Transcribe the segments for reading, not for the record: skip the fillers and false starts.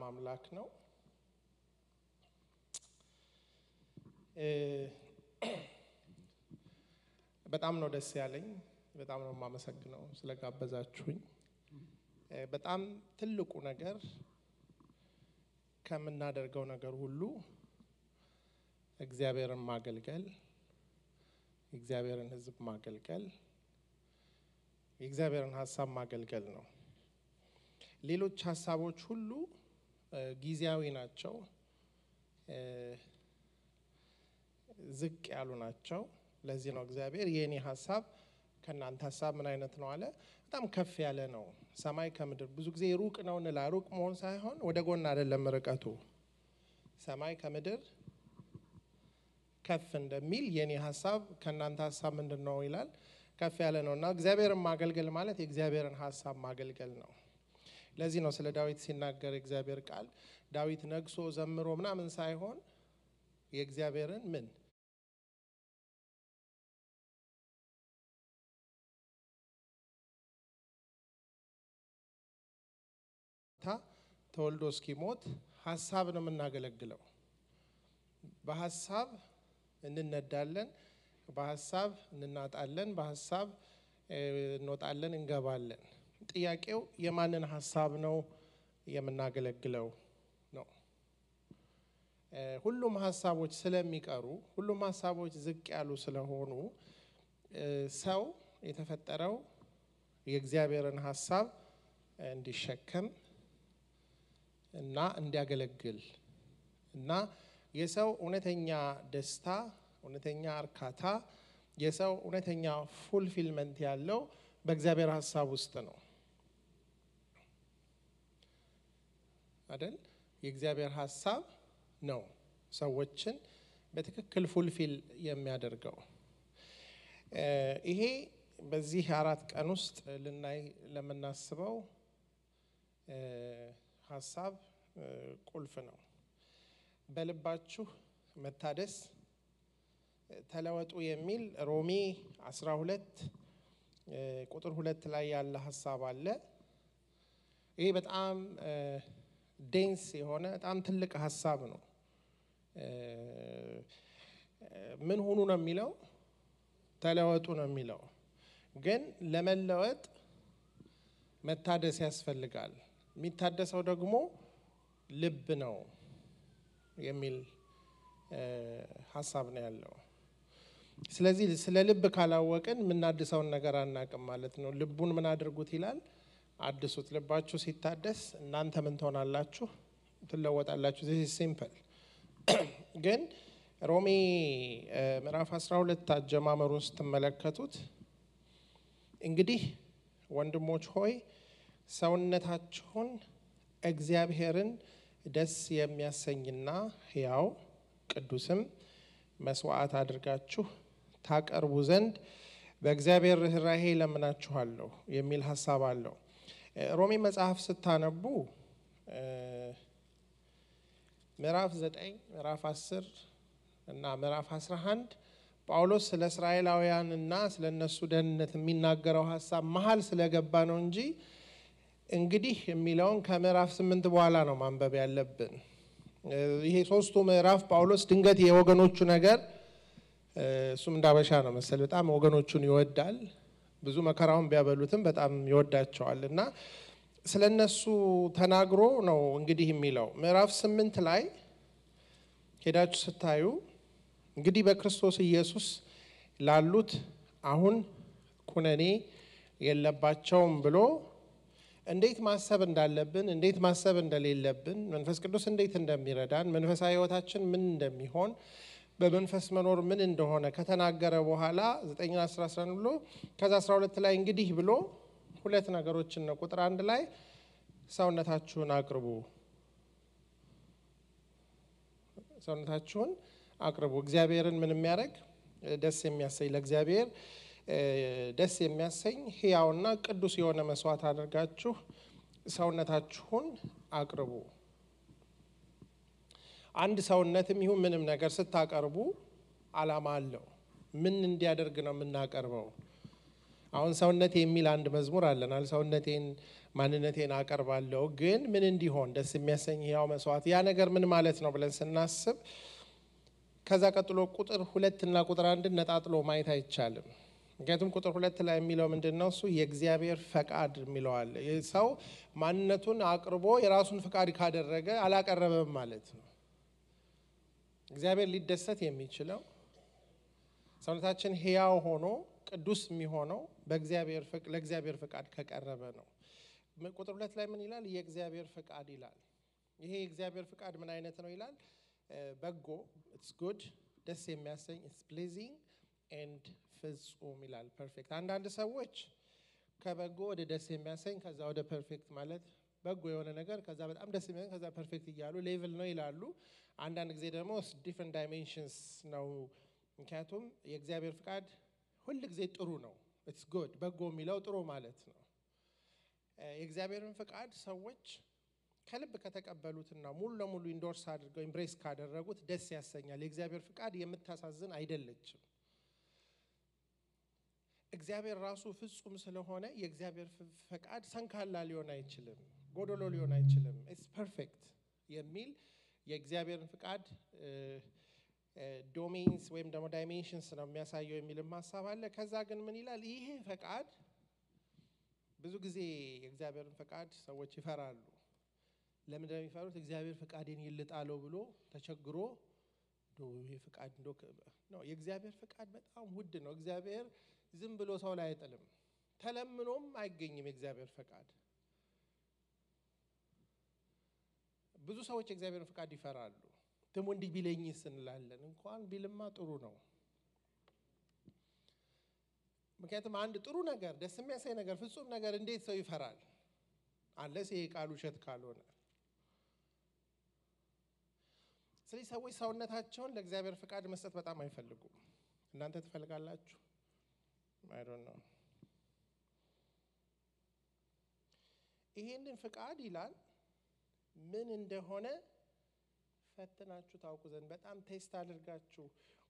አምላክ ነው በጣም ነው ደስ ያለኝ በጣም ነው ማመሰግነው ስለጋበዛችሁኝ በጣም ትልቁ ነገር ከምናደርገው ነገር ሁሉ እግዚአብሔርን ማገልገል እግዚአብሔርን ሕዝብ ማገልገል እግዚአብሔርን ሐሳብ ማገልገል ነው ሌሎች ሐሳቦች ሁሉ ጊዜያዊ ናቸው ዝቅ ያሉ ናቸው ለዚህ ነው እግዚአብሔር የኔ ሐሳብ ከናንተ ሐሳብ ምን አይነት ነው አለ በጣም ከፍ ያለ ነው ሰማይ ከምድር ብዙ ጊዜ ሩቅ ነው እንላ ሩቅ መሆን ሳይሆን ወደ ጎን አይደለም ርቀቱ ሰማይ ከምድር ከፍ እንደሚል የኔ ሐሳብ ከናንተ ሐሳብ ምንድነው ይላል ከፍ ያለ ነውና እግዚአብሔርን ማገልገል ማለት የእግዚአብሔርን ሐሳብ ማገልገል ነው ለዚህ ነው ስለ ዳዊት ሲናገር እግዚአብሔር ቃል ዳዊት ነግሶ ዘምሮ ምናምን ሳይሆን የእግዚአብሔርን ምን ተወልዶ እስኪሞት ሐሳብ ነው የምናገለግለው በሐሳብ እንነዳለን በሐሳብ እንናጣለን በሐሳብ እንወጣለን እንገባለን ጥያቄው የማንን ሐሳብ ነው የምናገለግለው ነው ሁሉም ሐሳቦች ስለሚቀሩ ሁሉም ሐሳቦች ዝቅ ያሉ ስለሆኑ ሰው የተፈጠረው የእግዚአብሔርን ሐሳብ እንዲሸከም እና እንዲያገለግል እና የሰው እውነተኛ ደስታ እውነተኛ እርካታ የሰው እውነተኛ ፉልፊልመንት ያለው በእግዚአብሔር ሐሳብ ውስጥ ነው አይደል የእግዚአብሔር ሐሳብ ነው ሰዎችን በትክክል ፉልፊል የሚያደርገው ይሄ በዚህ 4 ቀን ውስጥ ልናይ ለምናስበው ሐሳብ ቁልፍ ነው በልባችሁ መታደስ ተለወጡ የሚል ሮሜ 12 ቁጥር 2 ላይ ያለ ሐሳብ አለ ይሄ በጣም ዴንስ የሆነ በጣም ትልቅ ሐሳብ ነው ምን ሆኑ ነው የሚለው ተለወጡ ነው የሚለው ግን ለመለወጥ መታደስ ያስፈልጋል የሚታደሰው ደግሞ ልብ ነው የሚል ሐሳብ ነው ያለው ስለዚህ ስለ ልብ ካላወቅን ምናድሰውን ነገር አናቅም ማለት ነው ልቡን ምን አድርጉት ይላል አድሱት ልባችሁ ሲታደስ እናንተ ምን ትሆናላችሁ ትለወጣላችሁ this is simple ግን ሮሜ ምዕራፍ 12 አጀማመር ውስጥ ተመለከቱት እንግዲህ ወንድሞች ሆይ ሰውነታችሁን እግዚአብሔርን ደስ የሚያሰኝና ሕያው ቅዱስም መስዋዕት አድርጋችሁ ታቀርቡ ዘንድ በእግዚአብሔር ርህራሄ ለምናችኋለሁ የሚል ሐሳብ አለው ሮሜ መጽሐፍ ስታነቡ ምዕራፍ 9 ምዕራፍ 10 እና ምዕራፍ 11 ጳውሎስ ስለ እስራኤላውያንና ስለነሱ ደህንነት የሚናገረው ሐሳብ መሃል ስለገባ ነው እንጂ እንግዲህ የሚለውን ከምዕራፍ 8 በኋላ ነው ማንበብ ያለብን ይሄ ሶስቱ ምዕራፍ ጳውሎስ ድንገት የወገኖቹ ነገር እሱም እንዳበሻ ነው መሰል በጣም ወገኖቹን ይወዳል ብዙ መከራውን ቢያበሉትም በጣም ይወዳቸዋልና ስለነሱ ተናግሮ ነው እንግዲህ የሚለው ምዕራፍ 8 ላይ ሄዳችሁ ስታዩ እንግዲህ በክርስቶስ ኢየሱስ ላሉት አሁን ኩነኔ የለባቸውም ብሎ እንዴት ማሰብ እንዳለብን እንዴት ማሰብ እንደሌለብን መንፈስ ቅዱስ እንዴት እንደሚረዳን መንፈሳዊ ህይወታችን ምን እንደሚሆን በመንፈስ መኖር ምን እንደሆነ ከተናገረ በኋላ 9:11 ብሎ ከዛ 12 ላይ እንግዲህ ብሎ ሁለት ነገሮችን ነው ቁጥር 1 ላይ ሰውነታችሁን አቅርቡ እግዚአብሔርን ምን የሚያደርግ ደስ የሚያሰኝ ለእግዚአብሔር ደስ የሚያሰኝ ሕያውና ቅዱስ የሆነ መስዋዕት አድርጋችሁ ሰውነታችሁን አቅርቡ አንድ ሰውነትም ይሁን ምንም ነገር ስታቀርቡ ዓላማ አለው ምን እንዲያደርግ ነው የምናቀርበው አሁን ሰውነቴ የሚል አንድ መዝሙር አለናል። ሰውነቴን ማንነቴን አቀርባለሁ ግን ምን እንዲሆን ደስ የሚያሰኝ ያው መስዋዕት ያ ነገር ምን ማለት ነው ብለን ስናስብ ከዛ ቀጥሎ ቁጥር 2 እና ቁጥር 1 ነጣጥሎ ማየት አይቻልም። ምክንያቱም ቁጥር 2 ላይ የሚለው ምንድነው? እሱ የእግዚአብሔር ፈቃድ የሚለው አለ። ሰው ማንነቱን አቅርቦ የራሱን ፈቃድ ካደረገ አላቀረበም ማለት ነው። እግዚአብሔር ሊደሰት የሚችለው ሰውነታችን ሕያው ሆኖ ቅዱስ የሚሆነው ለእግዚአብሔር ፈቃድ ከቀረበ ነው። ቁጥር 2 ላይ ምን ይላል? የእግዚአብሔር ፈቃድ ይላል። ይሄ የእግዚአብሔር ፈቃድ ምን አይነት ነው ይላል? በጎ it's good ደስ የሚያሰኝ it's pleasing and ፍጹም ይላል። ፐርፌክት። አንዳንድ ሰዎች ከበጎ ወደ ደስ የሚያሰኝ ከዛ ወደ ፐርፌክት ማለት በጎ የሆነ ነገር ከዛ በጣም ደስ የሚያሰኝ ከዛ ፐርፌክት እያሉ ሌቭል ነው ይላሉ። አንዳንድ ጊዜ ደግሞ different dimensions ነው። ምክንያቱም የእግዚአብሔር ፈቃድ ሁሉ ጊዜ ጥሩ ነው። it's good በጎ የሚለው ጥሩ ማለት ነው። የእግዚአብሔርን ፈቃድ ሰዎች ከልብ ከተቀበሉትና ሙሉ ለሙሉ ኢንዶርስ አድርገው ኤምብሬስ ካደረጉት ደስ ያሰኛል። የእግዚአብሔር ፈቃድ የምታሳዝን አይደለችም። እግዚአብሔር ራሱ ፍጹም ስለሆነ የእግዚአብሔር ፈቃድ ሰንካላ ሊሆን አይችልም፣ ጎዶሎ ሊሆን አይችልም። it's perfect የሚል የእግዚአብሔርን ፈቃድ ዶሜንስ ወይም ደግሞ ዳይሜንሽንስ ነው የሚያሳየው የሚልም ሐሳብ አለ። ከዛ ግን ምን ይላል? ይሄ ፈቃድ ብዙ ጊዜ የእግዚአብሔርን ፈቃድ ሰዎች ይፈራሉ። ለምን እንደሚፈሩት? እግዚአብሔር ፈቃዴን ይልጣለው ብሎ ተቸግሮ ይሄ ፈቃድ ነው። የእግዚአብሔር ፈቃድ በጣም ውድ ነው። እግዚአብሔር ዝም ብሎ ሰው ላይ አይጥልም። ተለምኖም አይገኝም የእግዚአብሔር ፈቃድ። ብዙ ሰዎች የእግዚአብሔርን ፈቃድ ይፈራሉ። ደሞ እንዲህ ቢለኝስ እንላለን። እንኳን ቢልማ ጥሩ ነው። ምክንያቱም አንድ ጥሩ ነገር ደስ የሚያሰኝ ነገር ፍጹም ነገር እንዴት ሰው ይፈራል? አንለስ ይሄ ቃል ውሸት ካልሆነ። ስለዚህ ሰዎች ሰውነታቸውን ለእግዚአብሔር ፈቃድ መስጠት በጣም አይፈልጉም። እናንተ ትፈልጋላችሁ? I don't know። ይሄንን ፈቃድ ይላል ምን እንደሆነ ፈትናችሁ ታውቁ ዘንድ በጣም ቴስት አድርጋችሁ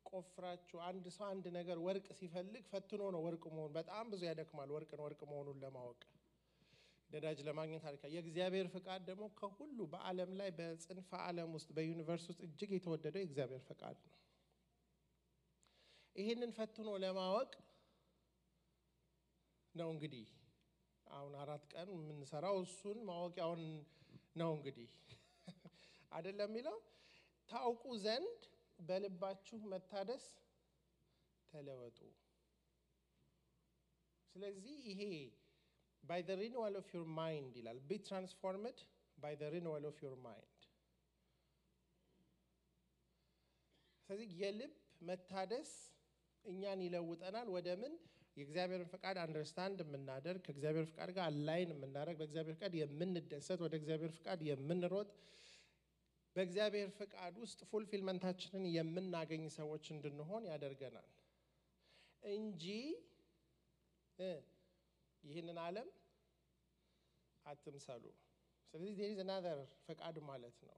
ቆፍራችሁ። አንድ ሰው አንድ ነገር ወርቅ ሲፈልግ ፈትኖ ነው ወርቅ መሆኑ። በጣም ብዙ ያደክማል ወርቅ መሆኑን ለማወቅ ነዳጅ ለማግኘት አልካ። የእግዚአብሔር ፈቃድ ደግሞ ከሁሉ በዓለም ላይ በጽንፈ ዓለም ውስጥ በዩኒቨርስ ውስጥ እጅግ የተወደደው የእግዚአብሔር ፈቃድ ነው። ይሄንን ፈትኖ ለማወቅ ነው እንግዲህ አሁን 4 ቀን የምንሰራው እሱን ማወቂያውን ነው እንግዲህ አይደለም የሚለው ታውቁ ዘንድ በልባችሁ መታደስ ተለወጡ። ስለዚህ ይሄ by the renewal of your mind ይላል። be transformed by the renewal of your mind። ስለዚህ የልብ መታደስ እኛን ይለውጠናል ወደ ምን? የእግዚአብሔርን ፈቃድ አንደርስታንድ የምናደርግ ከእግዚአብሔር ፈቃድ ጋር አላይን የምናደርግ በእግዚአብሔር ፈቃድ የምንደሰት ወደ እግዚአብሔር ፈቃድ የምንሮጥ በእግዚአብሔር ፈቃድ ውስጥ ፉልፊልመንታችንን የምናገኝ ሰዎች እንድንሆን ያደርገናል እንጂ ይህንን ዓለም አትምሰሉ። ስለዚህ there is another ፈቃድ ማለት ነው።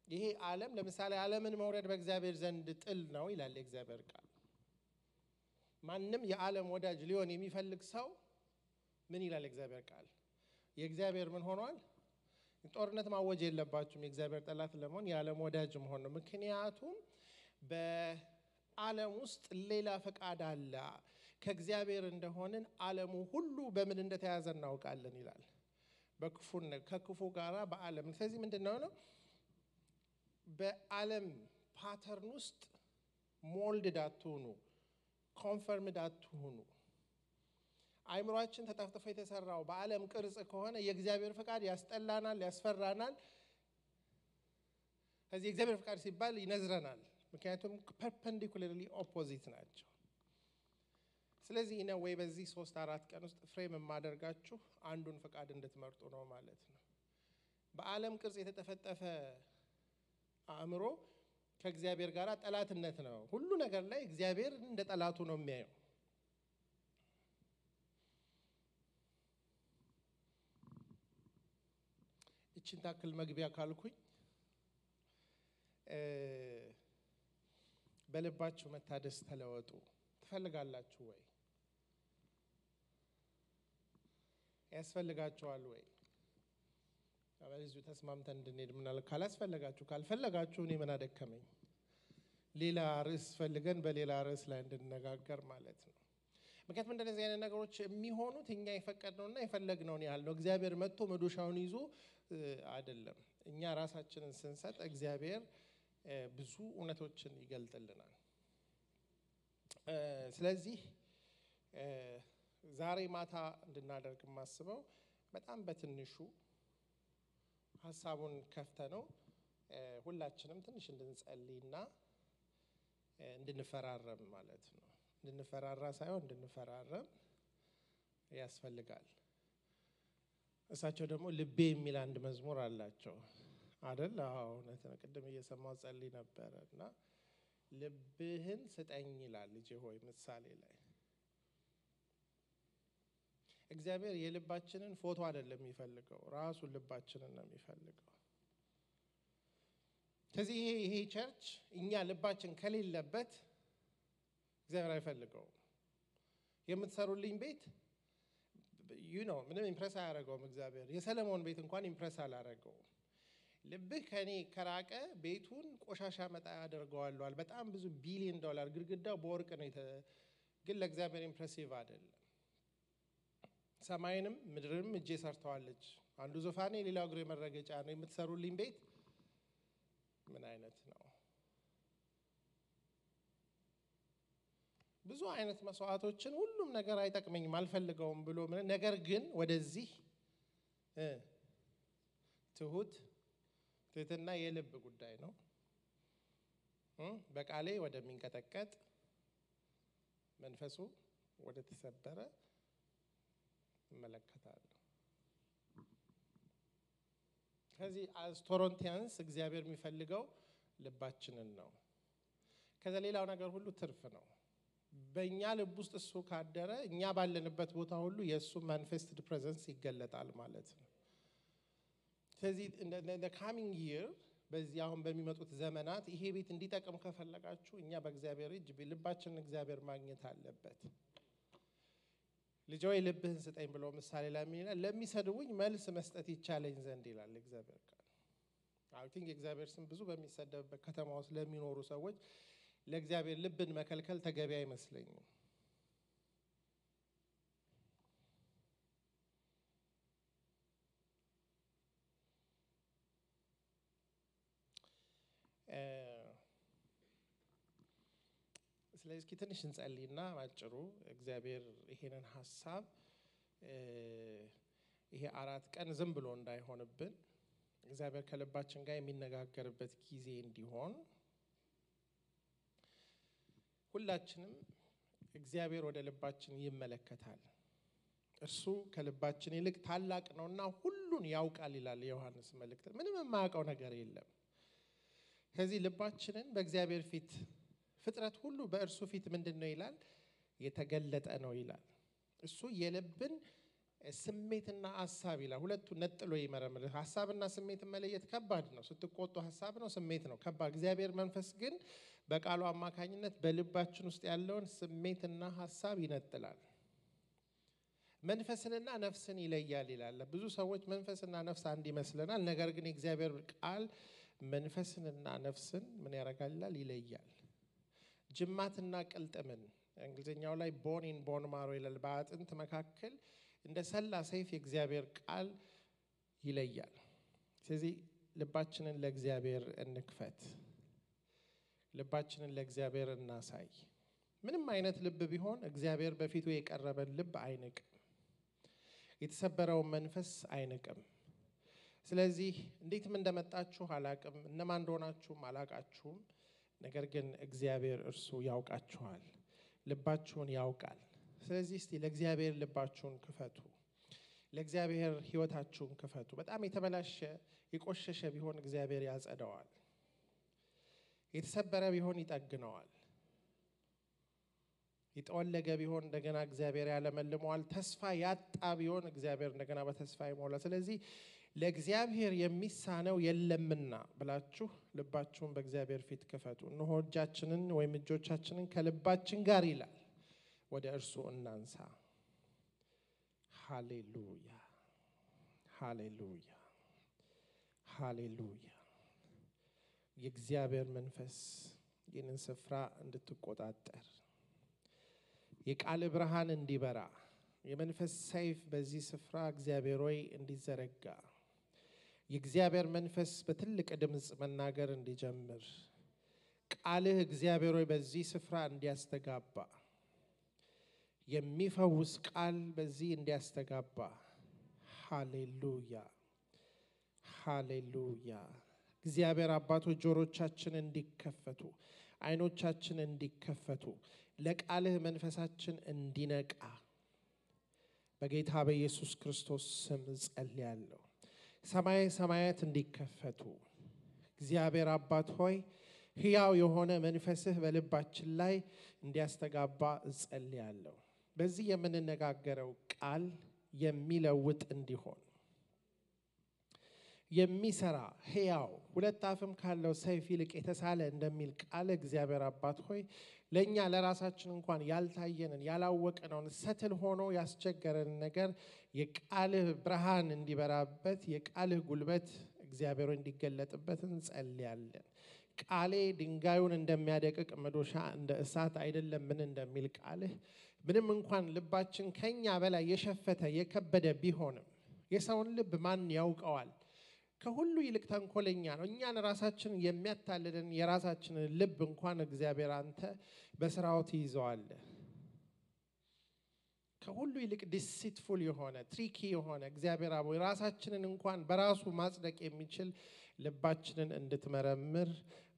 ይሄ ዓለም ለምሳሌ ዓለምን መውረድ በእግዚአብሔር ዘንድ ጥል ነው ይላል የእግዚአብሔር ቃል። ማንም የዓለም ወዳጅ ሊሆን የሚፈልግ ሰው ምን ይላል የእግዚአብሔር ቃል? የእግዚአብሔር ምን ሆኗል? ጦርነት ማወጅ የለባችሁም የእግዚአብሔር ጠላት ለመሆን የዓለም ወዳጅ መሆን ነው። ምክንያቱም በዓለም ውስጥ ሌላ ፈቃድ አለ። ከእግዚአብሔር እንደሆንን ዓለሙ ሁሉ በምን እንደተያዘ እናውቃለን ይላል። ከክፉ ጋራ በዓለም። ስለዚህ ምንድነው ነው በዓለም ፓተርን ውስጥ ሞልድድ አትሁኑ፣ ኮንፈርምድ አትሁኑ። አይምሮአችን ተጠፍጥፎ የተሰራው በዓለም ቅርጽ ከሆነ የእግዚአብሔር ፈቃድ ያስጠላናል፣ ያስፈራናል። ስለዚህ የእግዚአብሔር ፈቃድ ሲባል ይነዝረናል። ምክንያቱም ፐርፐንዲኩላርሊ ኦፖዚት ናቸው። ስለዚህ ነው ወይ በዚህ 3-4 ቀን ውስጥ ፍሬም የማደርጋችሁ አንዱን ፈቃድ እንድትመርጡ ነው ማለት ነው። በዓለም ቅርጽ የተጠፈጠፈ አእምሮ ከእግዚአብሔር ጋር ጠላትነት ነው። ሁሉ ነገር ላይ እግዚአብሔር እንደ ጠላቱ ነው የሚያየው። እቺን ታክል መግቢያ ካልኩኝ በልባችሁ መታደስ ተለወጡ ትፈልጋላችሁ ወይ? ያስፈልጋችኋል ወይ? አበለዚሁ ተስማምተን እንድንሄድ ምናል ካላስፈልጋችሁ ካልፈለጋችሁ እኔ ምን አደከመኝ ሌላ ርዕስ ፈልገን በሌላ ርዕስ ላይ እንድንነጋገር ማለት ነው። ምክንያቱም እንደዚህ አይነት ነገሮች የሚሆኑት እኛ የፈቀድነውና የፈለግነውን ያህል ነው። እግዚአብሔር መጥቶ መዶሻውን ይዞ አይደለም። እኛ ራሳችንን ስንሰጥ እግዚአብሔር ብዙ እውነቶችን ይገልጥልናል። ስለዚህ ዛሬ ማታ እንድናደርግ ማስበው በጣም በትንሹ ሐሳቡን ከፍተነው ሁላችንም ትንሽ እንድንጸልይና እንድንፈራረም ማለት ነው። እንድንፈራራ ሳይሆን እንድንፈራረም ያስፈልጋል። እሳቸው ደግሞ ልቤ የሚል አንድ መዝሙር አላቸው አይደል? አዎ እውነት ነው። ቅድም እየሰማው ጸልይ ነበርና ልብህን ስጠኝ ይላል ልጄ ሆይ ምሳሌ ላይ። እግዚአብሔር የልባችንን ፎቶ አይደለም የሚፈልገው ራሱ ልባችንን ነው የሚፈልገው። ስለዚህ ይሄ ቸርች እኛ ልባችን ከሌለበት እግዚአብሔር አይፈልገውም። የምትሰሩልኝ ቤት ምንም ኢምፕረስ አያደርገውም እግዚአብሔር። የሰለሞን ቤት እንኳን ኢምፕረስ አላደረገውም። ልብህ ከኔ ከራቀ ቤቱን ቆሻሻ መጣ ያደርገዋል። በጣም ብዙ ቢሊዮን ዶላር ግድግዳው በወርቅ ነው ግን ለእግዚአብሔር ኢምፕሬሲቭ አይደለም። ሰማይንም ምድርንም እጄ ሰርተዋለች። አንዱ ዙፋኔ ሌላው እግሬ መረገጫ ነው። የምትሰሩልኝ ቤት ምን አይነት ነው? ብዙ አይነት መስዋዕቶችን ሁሉም ነገር አይጠቅመኝም አልፈልገውም ብሎ ነገር ግን ወደዚህ ትህትና የልብ ጉዳይ ነው። በቃሌ ወደሚንቀጠቀጥ መንፈሱ ወደ ተሰበረ እመለከታለሁ። ከዚህ አስ ቶሮንቲያንስ እግዚአብሔር የሚፈልገው ልባችንን ነው። ከዛ ሌላው ነገር ሁሉ ትርፍ ነው። በእኛ ልብ ውስጥ እሱ ካደረ እኛ ባለንበት ቦታ ሁሉ የእሱ ማኒፌስትድ ፕሬዘንስ ይገለጣል ማለት ነው። ስለዚህ the coming year በዚህ አሁን በሚመጡት ዘመናት ይሄ ቤት እንዲጠቅም ከፈለጋችሁ እኛ በእግዚአብሔር እጅ ልባችንን እግዚአብሔር ማግኘት አለበት። ልጄ ሆይ ልብህን ስጠኝ ብሎ ምሳሌ ላይ ምን ይላል? ለሚሰድቡኝ መልስ መስጠት ይቻለኝ ዘንድ ይላል እግዚአብሔር ቃል። አይ ቲንክ እግዚአብሔር ስም ብዙ በሚሰደብበት ከተማ ውስጥ ለሚኖሩ ሰዎች ለእግዚአብሔር ልብን መከልከል ተገቢ አይመስለኝም። ስለዚህ ትንሽ እንጸልይና ማጭሩ እግዚአብሔር ይሄንን ሐሳብ ይሄ 4 ቀን ዝም ብሎ እንዳይሆንብን እግዚአብሔር ከልባችን ጋር የሚነጋገርበት ጊዜ እንዲሆን ሁላችንም እግዚአብሔር ወደ ልባችን ይመለከታል። እርሱ ከልባችን ይልቅ ታላቅ ነውና ሁሉን ያውቃል ይላል ዮሐንስ መልእክት። ምንም የማያውቀው ነገር የለም። ስለዚህ ልባችንን በእግዚአብሔር ፊት ፍጥረት ሁሉ በእርሱ ፊት ምንድነው ይላል? የተገለጠ ነው ይላል። እሱ የልብን ስሜትና ሐሳብ ይላል ሁለቱ ነጥሎ ይመረምራል። ሐሳብና ስሜት መለየት ከባድ ነው። ስትቆጡ ሐሳብ ነው፣ ስሜት ነው ከባድ። እግዚአብሔር መንፈስ ግን በቃሉ አማካኝነት በልባችን ውስጥ ያለውን ስሜትና ሐሳብ ይነጥላል። መንፈስንና ነፍስን ይለያል ይላል። ብዙ ሰዎች መንፈስና ነፍስ አንድ ይመስለናል። ነገር ግን የእግዚአብሔር ቃል መንፈስንና ነፍስን ምን ያደርጋል? ይለያል። ጅማትና ቅልጥምን እንግሊዝኛው ላይ ቦን ኢን ቦን ማሮ ይላል። በአጥንት መካከል እንደ ሰላ ሰይፍ የእግዚአብሔር ቃል ይለያል። ስለዚህ ልባችንን ለእግዚአብሔር እንክፈት። ልባችንን ለእግዚአብሔር እናሳይ። ምንም አይነት ልብ ቢሆን እግዚአብሔር በፊቱ የቀረበን ልብ አይንቅም። የተሰበረውን መንፈስ አይንቅም። ስለዚህ እንዴትም እንደመጣችሁ አላቅም፣ እነማን እንደሆናችሁም አላቃችሁም። ነገር ግን እግዚአብሔር እርሱ ያውቃችኋል፣ ልባችሁን ያውቃል። ስለዚህ እስቲ ለእግዚአብሔር ልባችሁን ክፈቱ፣ ለእግዚአብሔር ህይወታችሁን ክፈቱ። በጣም የተበላሸ የቆሸሸ ቢሆን እግዚአብሔር ያጸደዋል፣ የተሰበረ ቢሆን ይጠግነዋል፣ የተወለገ ቢሆን እንደገና እግዚአብሔር ያለመልመዋል፣ ተስፋ ያጣ ቢሆን እግዚአብሔር እንደገና በተስፋ ይሞላል። ስለዚህ ለእግዚአብሔር የሚሳነው የለምና ብላችሁ ልባችሁን በእግዚአብሔር ፊት ክፈቱ። እነሆ እጃችንን ወይም እጆቻችንን ከልባችን ጋር ይላል ወደ እርሱ እናንሳ። ሃሌሉያ። ሃሌሉያ ሃሌሉያ። የእግዚአብሔር መንፈስ ይህንን ስፍራ እንድትቆጣጠር የቃል ብርሃን እንዲበራ የመንፈስ ሰይፍ በዚህ ስፍራ እግዚአብሔር ሆይ እንዲዘረጋ የእግዚአብሔር መንፈስ በትልቅ ድምጽ መናገር እንዲጀምር ቃልህ እግዚአብሔር ሆይ በዚህ ስፍራ እንዲያስተጋባ የሚፈውስ ቃል በዚህ እንዲያስተጋባ ሃሌሉያ ሃሌሉያ። እግዚአብሔር አባቶች ጆሮቻችን እንዲከፈቱ አይኖቻችን እንዲከፈቱ ለቃልህ መንፈሳችን እንዲነቃ በጌታ በኢየሱስ ክርስቶስ ስም ጸልያለሁ። ሰማይ ሰማያት እንዲከፈቱ እግዚአብሔር አባት ሆይ ሕያው የሆነ መንፈስህ በልባችን ላይ እንዲያስተጋባ ጸልያለሁ። በዚህ የምንነጋገረው ቃል የሚለውጥ እንዲሆን የሚሰራ ሕያው ሁለት አፍም ካለው ሰይፍ ይልቅ የተሳለ እንደሚል ቃል እግዚአብሔር አባት ሆይ ለኛ ለራሳችን እንኳን ያልታየንን ያላወቅነውን ሰትል ሆኖ ያስቸገረን ነገር የቃልህ ብርሃን እንዲበራበት የቃልህ ጉልበት እግዚአብሔር እንዲገለጥበት እንጸልያለን። ቃሌ ድንጋዩን እንደሚያደቅቅ መዶሻ እንደ እሳት አይደለም ምን እንደሚል ቃልህ ምንም እንኳን ልባችን ከኛ በላይ የሸፈተ የከበደ ቢሆንም የሰውን ልብ ማን ያውቀዋል? ከሁሉ ይልቅ ተንኮለኛ ነው። እኛን ራሳችን የሚያታልልን የራሳችንን ልብ እንኳን እግዚአብሔር አንተ በስራው ትይዘዋለህ። ከሁሉ ይልቅ ዲሲትፉል የሆነ ትሪኪ የሆነ እግዚአብሔር አቦ ራሳችንን እንኳን በራሱ ማጽደቅ የሚችል ልባችንን እንድትመረምር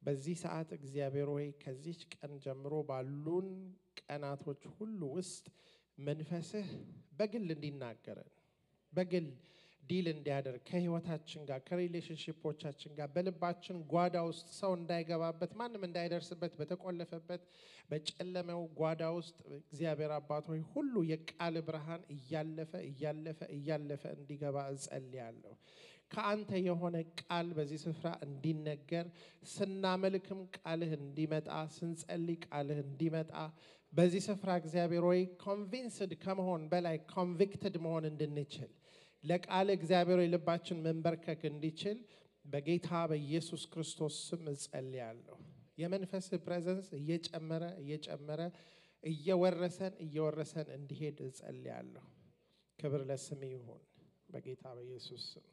በዚህ ሰዓት እግዚአብሔር ሆይ ከዚህ ቀን ጀምሮ ባሉን ቀናቶች ሁሉ ውስጥ መንፈስህ በግል እንዲናገረን በግል ዲል እንዲያደርግ ከህይወታችን ጋር ከሪሌሽንሺፖቻችን ጋር በልባችን ጓዳ ውስጥ ሰው እንዳይገባበት ማንም እንዳይደርስበት በተቆለፈበት በጨለመው ጓዳ ውስጥ እግዚአብሔር አባት ሆይ ሁሉ የቃል ብርሃን እያለፈ እንዲገባ እጸልያለሁ። ከአንተ የሆነ ቃል በዚህ ስፍራ እንዲነገር ስናመልክም ቃልህ እንዲመጣ ስንጸልይ ቃልህ እንዲመጣ በዚህ ስፍራ እግዚአብሔር ሆይ ኮንቪንስድ ከመሆን በላይ ኮንቪክትድ መሆን እንድንችል ለቃል እግዚአብሔር ልባችን መንበርከክ እንዲችል በጌታ በኢየሱስ ክርስቶስ ስም እጸልያለሁ። የመንፈስ ፕሬዘንስ እየጨመረ እየወረሰን እንዲሄድ እጸልያለሁ። ክብር ለስም ይሁን በጌታ በኢየሱስ ስም።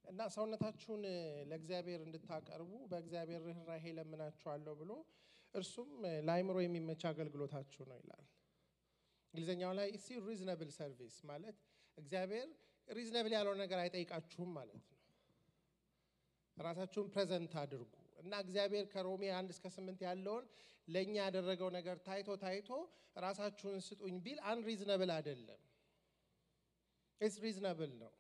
እና ሰውነታችሁን ለእግዚአብሔር እንድታቀርቡ በእግዚአብሔር ርህራሄ ለምናችኋለሁ ብሎ እርሱም ለአእምሮ የሚመች አገልግሎታችሁ ነው ይላል። እንግሊዘኛው ላይ ሲ ሪዝነብል ሰርቪስ ማለት እግዚአብሔር ሪዝነብል ያለው ነገር አይጠይቃችሁም ማለት ነው። ራሳችሁን ፕሬዘንት አድርጉ እና እግዚአብሔር ከሮሜ 1-8 ያለውን ለኛ ያደረገው ነገር ታይቶ ራሳችሁን ስጡኝ ቢል አንሪዝነብል አይደለም። ኢትስ ሪዝነብል ነው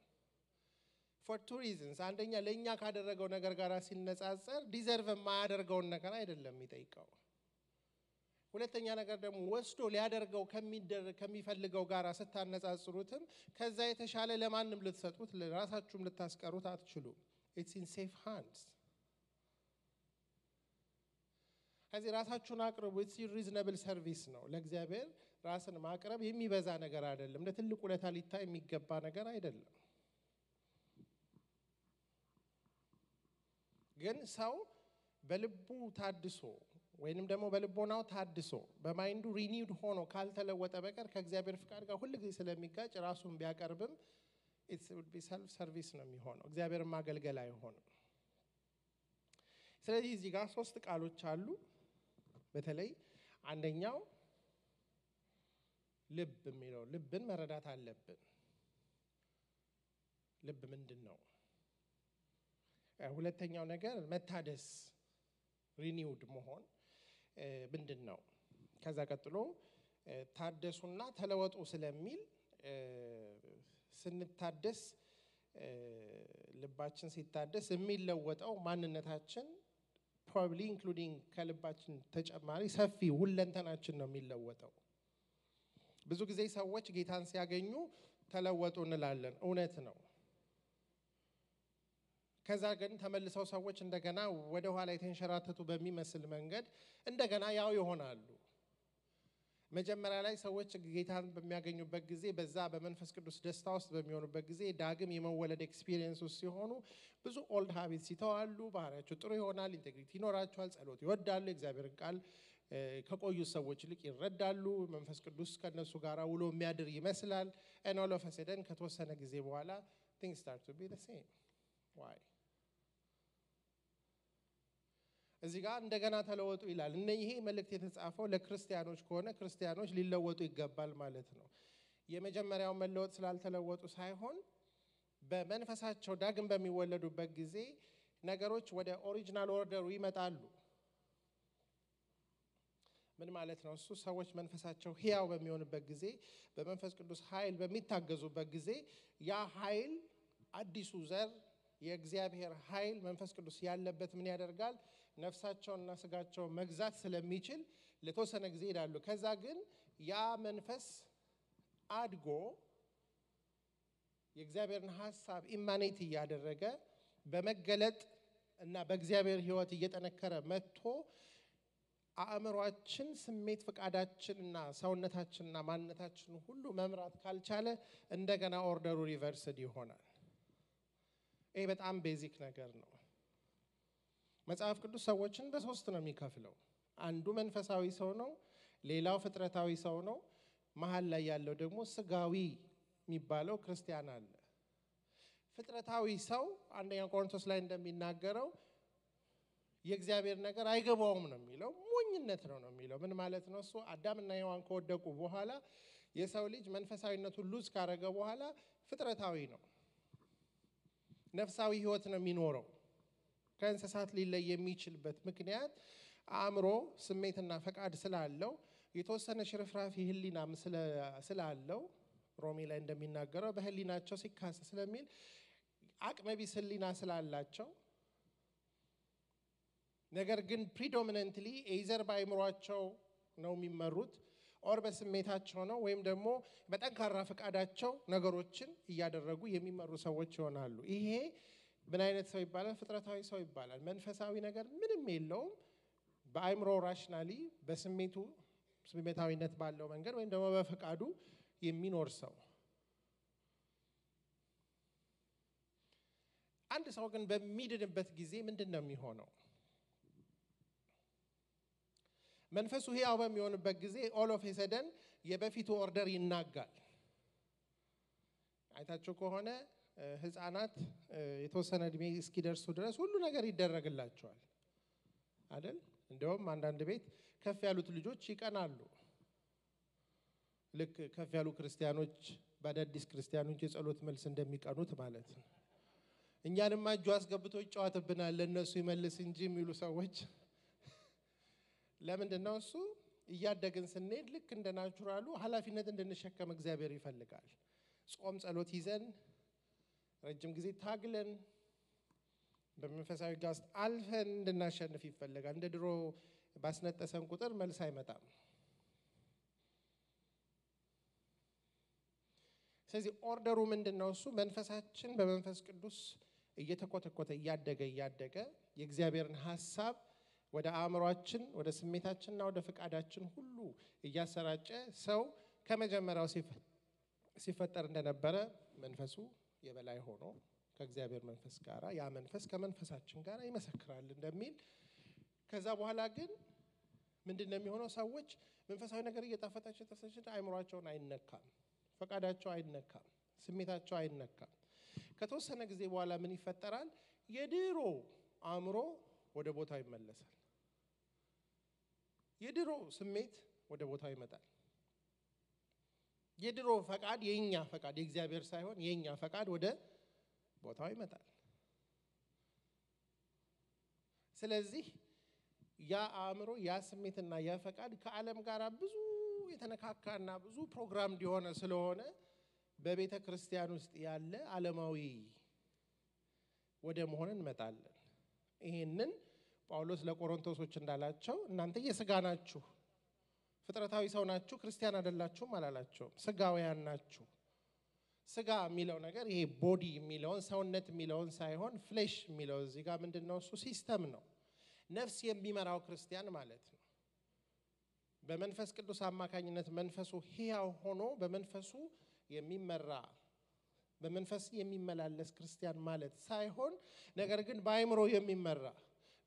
for two reasons። አንደኛ ለኛ ካደረገው ነገር ጋር ሲነጻጸር ዲዘርቭ የማያደርገውን ነገር አይደለም የሚጠይቀው። ሁለተኛ ነገር ደግሞ ወስዶ ሊያደርገው ከሚፈልገው ጋር ስታነጻጽሩትም ከዛ የተሻለ ለማንም ልትሰጡት ለራሳችሁም ልታስቀሩት አትችሉም። it's in safe hands። ከዚህ ራሳችሁን አቅርቡ። it's reasonable service ነው። ለእግዚአብሔር ራስን ማቅረብ የሚበዛ ነገር አይደለም። ለትልቅ ውለታ ሊታይ የሚገባ ነገር አይደለም። ግን ሰው በልቡ ታድሶ ወይንም ደግሞ በልቦናው ታድሶ በማይንዱ ሪኒውድ ሆኖ ካልተለወጠ በቀር ከእግዚአብሔር ፍቃድ ጋር ሁሉ ጊዜ ስለሚጋጭ ራሱን ቢያቀርብም it would be self service ነው የሚሆነው። እግዚአብሔርን ማገልገል አይሆንም። ስለዚህ እዚህ ጋር 3 ቃሎች አሉ። በተለይ አንደኛው ልብ የሚለው ልብን መረዳት አለብን። ልብ ምንድነው? ሁለተኛው ነገር መታደስ ሪኒውድ መሆን ምንድነው? ከዛ ቀጥሎ ታደሱና ተለወጡ ስለሚል ስንታደስ ልባችን ሲታደስ የሚለወጠው ማንነታችን probably including ከልባችን ተጨማሪ ሰፊ ሁለንተናችን ነው የሚለወጠው። ብዙ ጊዜ ሰዎች ጌታን ሲያገኙ ተለወጡ እንላለን፣ እውነት ነው። ከዛ ግን ተመልሰው ሰዎች እንደገና ወደ ኋላ የተንሸራተቱ በሚመስል መንገድ እንደገና ያው ይሆናሉ። መጀመሪያ ላይ ሰዎች ጌታን በሚያገኙበት ጊዜ በዛ በመንፈስ ቅዱስ ደስታ ውስጥ በሚሆኑበት ጊዜ ዳግም የመወለድ ኤክስፒሪየንስ ውስጥ ሲሆኑ ብዙ ኦልድ ሃቢትስ ይተዋሉ። ባህሪያቸው ጥሩ ይሆናል። ኢንቴግሪቲ ይኖራቸዋል። ጸሎት ይወዳሉ። እግዚአብሔርን ቃል ከቆዩ ሰዎች ይልቅ ይረዳሉ። መንፈስ ቅዱስ ከነሱ ጋር ውሎ የሚያድር ይመስላል። and all of a sudden ከተወሰነ ጊዜ በኋላ things start to be the same. why? እዚህ ጋር እንደገና ተለወጡ ይላል። ይሄ መልእክት የተጻፈው ለክርስቲያኖች ከሆነ ክርስቲያኖች ሊለወጡ ይገባል ማለት ነው። የመጀመሪያው መለወጥ ስላልተለወጡ ሳይሆን በመንፈሳቸው ዳግም በሚወለዱበት ጊዜ ነገሮች ወደ ኦሪጂናል ኦርደሩ ይመጣሉ። ምን ማለት ነው? እሱ ሰዎች መንፈሳቸው ሕያው በሚሆንበት ጊዜ በመንፈስ ቅዱስ ኃይል በሚታገዙበት ጊዜ ያ ኃይል አዲሱ ዘር የእግዚአብሔር ኃይል መንፈስ ቅዱስ ያለበት ምን ያደርጋል? ነፍሳቸውንና ስጋቸውን መግዛት ስለሚችል ለተወሰነ ጊዜ ይላሉ። ከዛ ግን ያ መንፈስ አድጎ የእግዚአብሔርን ሐሳብ ኢማኔት እያደረገ በመገለጥ እና በእግዚአብሔር ሕይወት እየጠነከረ መጥቶ አእምሯችን፣ ስሜት፣ ፍቃዳችንና ሰውነታችንና ማንነታችን ሁሉ መምራት ካልቻለ እንደገና ኦርደሩ ሪቨርስድ ይሆናል። ይሄ በጣም ቤዚክ ነገር ነው። መጽሐፍ ቅዱስ ሰዎችን በሶስት ነው የሚከፍለው። አንዱ መንፈሳዊ ሰው ነው፣ ሌላው ፍጥረታዊ ሰው ነው፣ መሃል ላይ ያለው ደግሞ ስጋዊ የሚባለው ክርስቲያን አለ። ፍጥረታዊ ሰው አንደኛ ቆሮንቶስ ላይ እንደሚናገረው የእግዚአብሔር ነገር አይገባውም ነው የሚለው። ሞኝነት ነው የሚለው። ምን ማለት ነው? እሱ አዳምና ሔዋን ከወደቁ በኋላ የሰው ልጅ መንፈሳዊነቱን ሉዝ ካረገ በኋላ ፍጥረታዊ ነው፣ ነፍሳዊ ህይወት ነው የሚኖረው። ከእንስሳት ሊለይ የሚችልበት ምክንያት አእምሮ፣ ስሜትና ፈቃድ ስላለው የተወሰነ ሽርፍራፊ ህሊናም ስላለው ሮሜ ላይ እንደሚናገረው በህሊናቸው ሲካሰስ ስለሚል አቅመቢስ ህሊና ስላላቸው ነገር ግን ፕሪዶሚናንትሊ ኤዘር በአእምሯቸው ነው የሚመሩት ኦር በስሜታቸው ነው ወይም ደግሞ በጠንካራ ፈቃዳቸው ነገሮችን እያደረጉ የሚመሩ ሰዎች ይሆናሉ። ይሄ ምን አይነት ሰው ይባላል? ፍጥረታዊ ሰው ይባላል። መንፈሳዊ ነገር ምንም የለውም። በአእምሮ ራሽናሊ በስሜቱ ስሜታዊነት ባለው መንገድ ወይም ደግሞ በፈቃዱ የሚኖር ሰው። አንድ ሰው ግን በሚድንበት ጊዜ ምንድነው የሚሆነው? መንፈሱ ሕያው በሚሆንበት ጊዜ ኦል ኦፍ ኤ ሰደን የበፊቱ ኦርደር ይናጋል። አይታችሁ ከሆነ ህፃናት የተወሰነ እድሜ እስኪደርሱ ድረስ ሁሉ ነገር ይደረግላቸዋል አይደል? እንደውም አንዳንድ ቤት ከፍ ያሉት ልጆች ይቀናሉ። ልክ ከፍ ያሉ ክርስቲያኖች በአዳዲስ ክርስቲያኖች የጸሎት መልስ እንደሚቀኑት ማለት ነው። እኛንማ እጁ አስገብቶ ይጫወትብናል ለነሱ ይመልስ እንጂ የሚሉ ሰዎች ለምንድን ነው? እሱ እያደግን ስንሄድ ልክ እንደ ናቹራሉ ኃላፊነት እንድንሸከም እግዚአብሔር ይፈልጋል። ጾም ጸሎት ይዘን ረጅም ጊዜ ታግለን በመንፈሳዊ ጋስት አልፈን እንድናሸንፍ ይፈልጋል። እንደ ድሮ ባስነጠሰን ቁጥር መልስ አይመጣም። ስለዚህ ኦርደሩ ምንድነው? እሱ መንፈሳችን በመንፈስ ቅዱስ እየተኮተኮተ እያደገ የእግዚአብሔርን ሐሳብ ወደ አእምሯችን፣ ወደ ስሜታችንና ወደ ፈቃዳችን ሁሉ እያሰራጨ ሰው ከመጀመሪያው ሲፈጠር እንደነበረ መንፈሱ የበላይ ሆኖ ከእግዚአብሔር መንፈስ ጋር ያ መንፈስ ከመንፈሳችን ጋር ይመሰክራል እንደሚል። ከዛ በኋላ ግን ምንድነው የሚሆነው? ሰዎች መንፈሳዊ ነገር እየጣፈጣቸው ተሰጭ አእምሯቸውን አይነካም፣ ፈቃዳቸው አይነካም፣ ስሜታቸው አይነካም። ከተወሰነ ጊዜ በኋላ ምን ይፈጠራል? የድሮ አእምሮ ወደ ቦታው ይመለሳል። የድሮ ስሜት ወደ ቦታው ይመጣል። የድሮ ፈቃድ የኛ ፈቃድ የእግዚአብሔር ሳይሆን የኛ ፈቃድ ወደ ቦታው ይመጣል። ስለዚህ ያ አእምሮ ያ ስሜትና ያ ፈቃድ ከዓለም ጋር ብዙ የተነካካና ብዙ ፕሮግራም እንዲሆነ ስለሆነ በቤተ ክርስቲያን ውስጥ ያለ ዓለማዊ ወደ መሆን እንመጣለን። ይሄንን ጳውሎስ ለቆሮንቶሶች እንዳላቸው እናንተ የሥጋ ናችሁ፣ ፍጥረታዊ ሰው ናችሁ፣ ክርስቲያን አይደላችሁም አላላቸውም። ሥጋውያን ናችሁ። ሥጋ የሚለው ነገር ይሄ ቦዲ የሚለውን ሰውነት የሚለውን ሳይሆን ፍሌሽ የሚለው እዚህ ጋር ምንድነው? እሱ ሲስተም ነው። ነፍስ የሚመራው ክርስቲያን ማለት ነው። በመንፈስ ቅዱስ አማካኝነት መንፈሱ ሕያው ሆኖ በመንፈሱ የሚመራ በመንፈስ የሚመላለስ ክርስቲያን ማለት ሳይሆን ነገር ግን በአእምሮ የሚመራ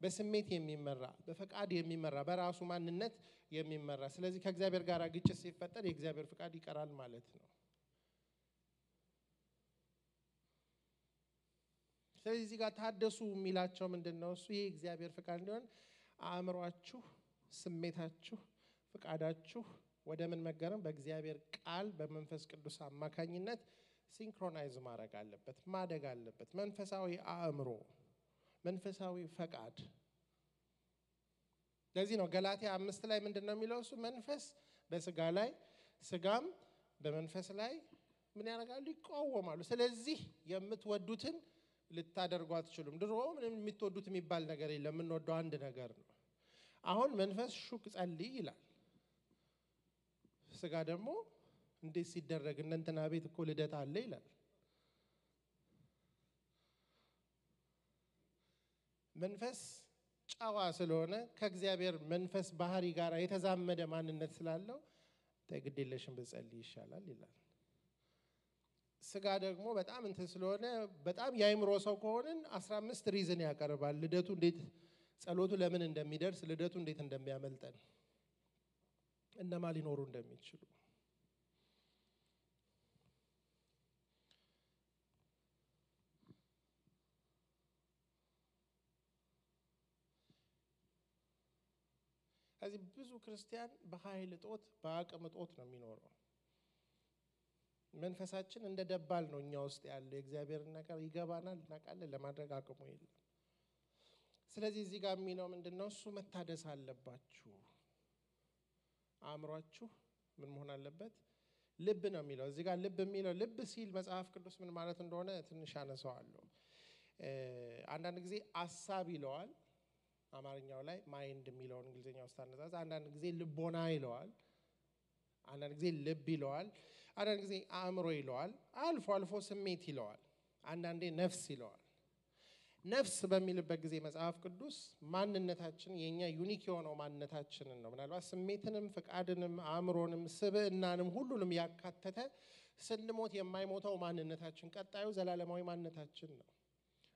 በስሜት የሚመራ በፈቃድ የሚመራ በራሱ ማንነት የሚመራ ስለዚህ ከእግዚአብሔር ጋር ግጭት ሲፈጠር የእግዚአብሔር ፈቃድ ይቀራል ማለት ነው ስለዚህ እዚህ ጋር ታደሱ የሚላቸው ምንድነው እሱ የእግዚአብሔር ፈቃድ እንዲሆን አእምሮአችሁ ስሜታችሁ ፈቃዳችሁ ወደ ምን መገረም በእግዚአብሔር ቃል በመንፈስ ቅዱስ አማካኝነት ሲንክሮናይዝ ማድረግ አለበት ማደግ አለበት መንፈሳዊ አእምሮ መንፈሳዊ ፈቃድ ለዚህ ነው ገላትያ 5 ላይ ምንድነው የሚለው እሱ መንፈስ በስጋ ላይ ስጋም በመንፈስ ላይ ምን ያደርጋሉ ይቃወማሉ ስለዚህ የምትወዱትን ልታደርጉ አትችሉም ድሮ ምንም የምትወዱት የሚባል ነገር የለም የምንወደው አንድ ነገር ነው አሁን መንፈስ ሹክ ጸልይ ይላል ስጋ ደግሞ እንዴት ሲደረግ እንትና ቤት እኮ ልደት አለ ይላል መንፈስ ጫዋ ስለሆነ ከእግዚአብሔር መንፈስ ባህሪ ጋር የተዛመደ ማንነት ስላለው ተግዴለሽም በጸልይ ይሻላል ይላል ስጋ ደግሞ በጣም እንትን ስለሆነ በጣም ያይምሮ ሰው ከሆነን 15 ሪዝን ያቀርባል ልደቱ እንዴት ጸሎቱ ለምን እንደሚደርስ ልደቱ እንዴት እንደሚያመልጠን እነማ ሊኖሩ እንደሚችሉ ስለዚህ ብዙ ክርስቲያን በኃይል ጦት በአቅም ጦት ነው የሚኖረው መንፈሳችን እንደ ደባል ነው እኛ ውስጥ ያለ እግዚአብሔር ነገር ይገባናል እናቃለን ለማድረግ አቅሙ የለም ስለዚህ እዚህ ጋር የሚለው ምንድነው እሱ መታደስ አለባችሁ አእምሮአችሁ ምን መሆን አለበት ልብ ነው የሚለው እዚህ ጋር ልብ የሚለው ልብ ሲል መጽሐፍ ቅዱስ ምን ማለት እንደሆነ ትንሽ አነሳዋለሁ አንዳንድ ጊዜ ሐሳብ ይለዋል አማርኛው ላይ ማይንድ የሚለውን እንግሊዘኛው ውስጥ አነጻጽ አንዳንድ ጊዜ ልቦና ይለዋል አንዳንድ ጊዜ ልብ ይለዋል አንዳንድ ጊዜ አእምሮ ይለዋል አልፎ አልፎ ስሜት ይለዋል አንዳንዴ ነፍስ ይለዋል ነፍስ በሚልበት ጊዜ መጽሐፍ ቅዱስ ማንነታችን የኛ ዩኒክ የሆነው ማንነታችንን ነው ምናልባት ስሜትንም ፈቃድንም አእምሮንም ስብዕናንም ሁሉንም ያካተተ ስንሞት የማይሞተው ማንነታችን ቀጣዩ ዘላለማዊ ማንነታችን ነው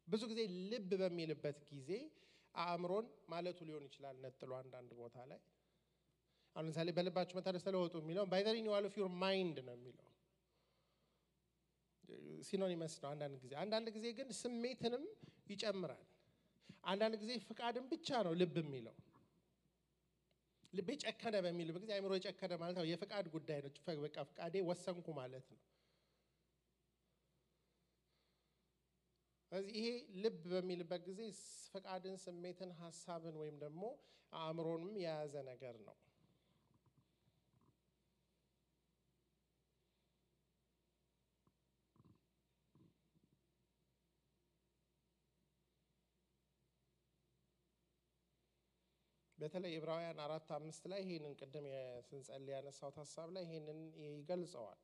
ብዙ ጊዜ ልብ በሚልበት ጊዜ አእምሮን ማለቱ ሊሆን ይችላል ነጥሎ አንዳንድ ቦታ ላይ አሁን ለምሳሌ በልባችሁ መታደስ ተለወጡ የሚለው by the renewal of your mind ነው የሚለው ሲኖኒመስ ነው አንዳንድ ጊዜ ግን ስሜትንም ይጨምራል አንዳንድ ጊዜ ፍቃድን ብቻ ነው ልብ የሚለው ልብ ጨከነ በሚል በጊዜ አእምሮ ጨከነ ማለት ነው የፍቃድ ጉዳይ ነው በቃ ፍቃዴ ወሰንኩ ማለት ነው ስለዚህ ይሄ ልብ በሚልበት ጊዜ ፍቃድን ስሜትን ሐሳብን ወይም ደግሞ አእምሮንም የያዘ ነገር ነው በተለይ ዕብራውያን 4:5 ላይ ይሄንን ቀደም የስንጸልይ ያነሳው ሐሳብ ላይ ይሄንን ይገልጸዋል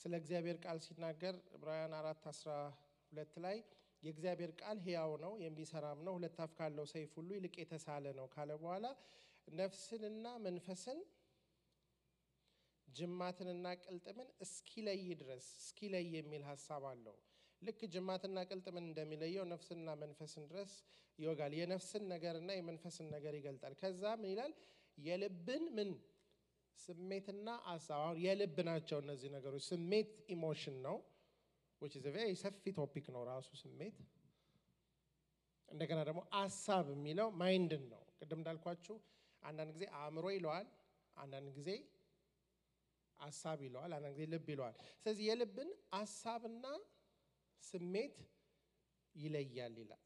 ስለ እግዚአብሔር ቃል ሲናገር ዕብራውያን 4:12 ላይ የእግዚአብሔር ቃል ሕያው ነው የሚሰራም ነው ሁለት አፍ ካለው ሰይፍ ሁሉ ይልቅ የተሳለ ነው ካለ በኋላ ነፍስንና መንፈስን ጅማትንና ቅልጥምን እስኪለይ ድረስ እስኪለይ የሚል ሐሳብ አለው ልክ ጅማትና ቅልጥምን እንደሚለየው ነፍስና መንፈስን ድረስ ይወጋል የነፍስን ነገርና የመንፈስን ነገር ይገልጣል ከዛ ምን ይላል የልብን ምን ስሜትና ሐሳብ የልብ ናቸው እነዚህ ነገሮች ስሜት ኢሞሽን ነው which is a very ሰፊ ቶፒክ ነው ራሱ ስሜት እንደገና ደግሞ ሐሳብ የሚለው ማይንድን ነው ቅድም እንዳልኳችሁ አንዳንድ ጊዜ አእምሮ ይለዋል አንዳንድ ጊዜ ሐሳብ ይለዋል አንዳንድ ጊዜ ልብ ይለዋል ስለዚህ የልብን ሐሳብና ስሜት ይለያል ይላል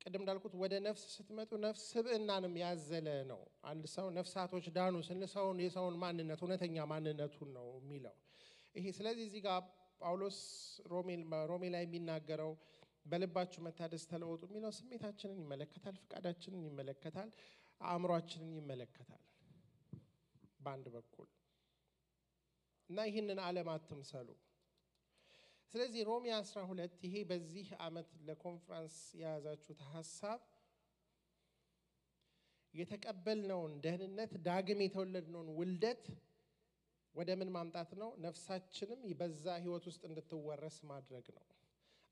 ቅድም እንዳልኩት ወደ ነፍስ ስትመጡ ነፍስ ስብዕናንም ያዘለ ነው አንድ ሰው ነፍሳቶች ዳኑ ስንሰውን የሰውን ማንነት እውነተኛ ማንነቱን ነው የሚለው ይሄ ስለዚህ እዚህ ጋር ጳውሎስ ሮሜ ላይ የሚናገረው በልባችሁ መታደስ ተለወጡ የሚለው ስሜታችንን ይመለከታል ፍቃዳችንን ይመለከታል አእምሮአችንን ይመለከታል በአንድ በኩል እና ይህንን ዓለም አትምሰሉ ስለዚህ ሮሜ 12 ይሄ በዚህ ዓመት ለኮንፈረንስ የያዛችሁት ሐሳብ የተቀበልነውን ደህንነት ዳግም የተወለድነውን ውልደት ወደ ምን ማምጣት ነው? ነፍሳችንም በዛ ህይወት ውስጥ እንድትወረስ ማድረግ ነው።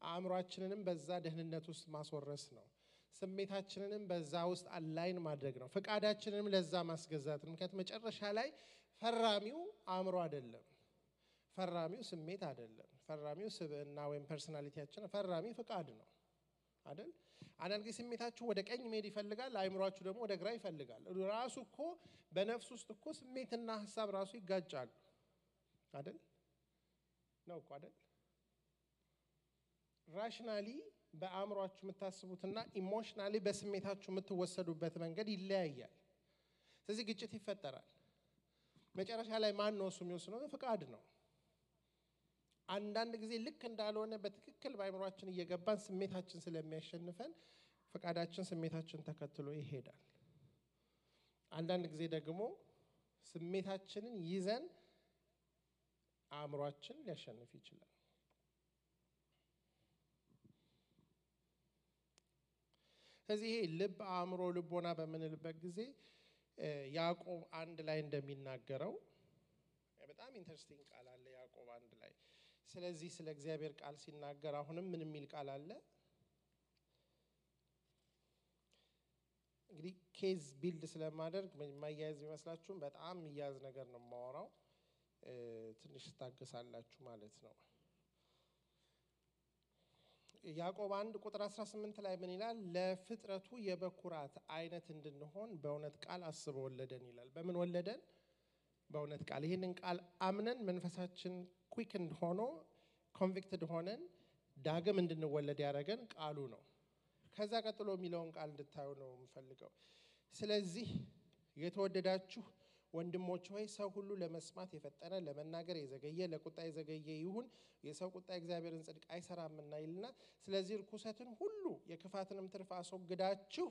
አእምሮአችንንም በዛ ደህንነት ውስጥ ማስወረስ ነው። ስሜታችንንም በዛ ውስጥ አላይን ማድረግ ነው። ፍቃዳችንንም ለዛ ማስገዛት ነው። ምክንያቱም መጨረሻ ላይ ፈራሚው አእምሮ አይደለም፣ ፈራሚው ስሜት አይደለም፣ ፈራሚው ስብዕና ወይም ፐርሰናሊቲያችን፣ ፈራሚ ፍቃድ ነው አይደል? አንዳንድ ጊዜ ስሜታችሁ ወደ ቀኝ መሄድ ይፈልጋል፣ አእምሮአችሁ ደግሞ ወደ ግራ ይፈልጋል። ራሱ እኮ በነፍስ ውስጥ እኮ ስሜትና ሐሳብ ራሱ ይጋጫሉ አይደል? ነው እኮ አይደል? ራሽናሊ በአእምሮአችሁ የምታስቡትና ኢሞሽናሊ በስሜታችሁ የምትወሰዱበት መንገድ ይለያያል። ስለዚህ ግጭት ይፈጠራል። መጨረሻ ላይ ማን ነው እሱ የሚወስነው? ፍቃድ ነው። አንዳንድ ጊዜ ልክ እንዳልሆነ በትክክል በአእምሮአችን እየገባን ስሜታችን ስለሚያሸንፈን ፍቃዳችን ስሜታችን ተከትሎ ይሄዳል። አንዳንድ ጊዜ ደግሞ ስሜታችንን ይዘን አእምሮአችን ሊያሸንፍ ይችላል። ስለዚህ ይሄ ልብ፣ አእምሮ፣ ልቦና በምንልበት ጊዜ ያዕቆብ 1 ላይ እንደሚናገረው በጣም ኢንተረስቲንግ ቃል አለ። ያዕቆብ 1 ላይ ስለዚህ ስለ እግዚአብሔር ቃል ሲናገር አሁንም ምን የሚል ቃል አለ? እንግዲህ ኬዝ ቢልድ ስለማደርግ ማያያዝ ቢመስላችሁም በጣም የሚያዝ ነገር ነው የማወራው። ትንሽ ታገሳላችሁ ማለት ነው። ያዕቆብ 1 ቁጥር 18 ላይ ምን ይላል? ለፍጥረቱ የበኩራት አይነት እንድንሆን በእውነት ቃል አስቦ ወለደን ይላል። በምን ወለደን? በእውነት ቃል። ይህንን ቃል አምነን መንፈሳችን ኩዊክንድ ሆኖ ኮንቪክትድ ሆነን ዳግም እንድንወለድ ያደረገን ቃሉ ነው። ከዛ ቀጥሎ የሚለውን ቃል እንድታዩ ነው የምፈልገው። ስለዚህ የተወደዳችሁ ወንድሞች ሆይ ሰው ሁሉ ለመስማት የፈጠነ ለመናገር የዘገየ ለቁጣ የዘገየ ይሁን፣ የሰው ቁጣ እግዚአብሔርን ጽድቅ አይሰራምና ይልና፣ ስለዚህ ርኩሰትን ሁሉ የክፋትንም ትርፍ አስወግዳችሁ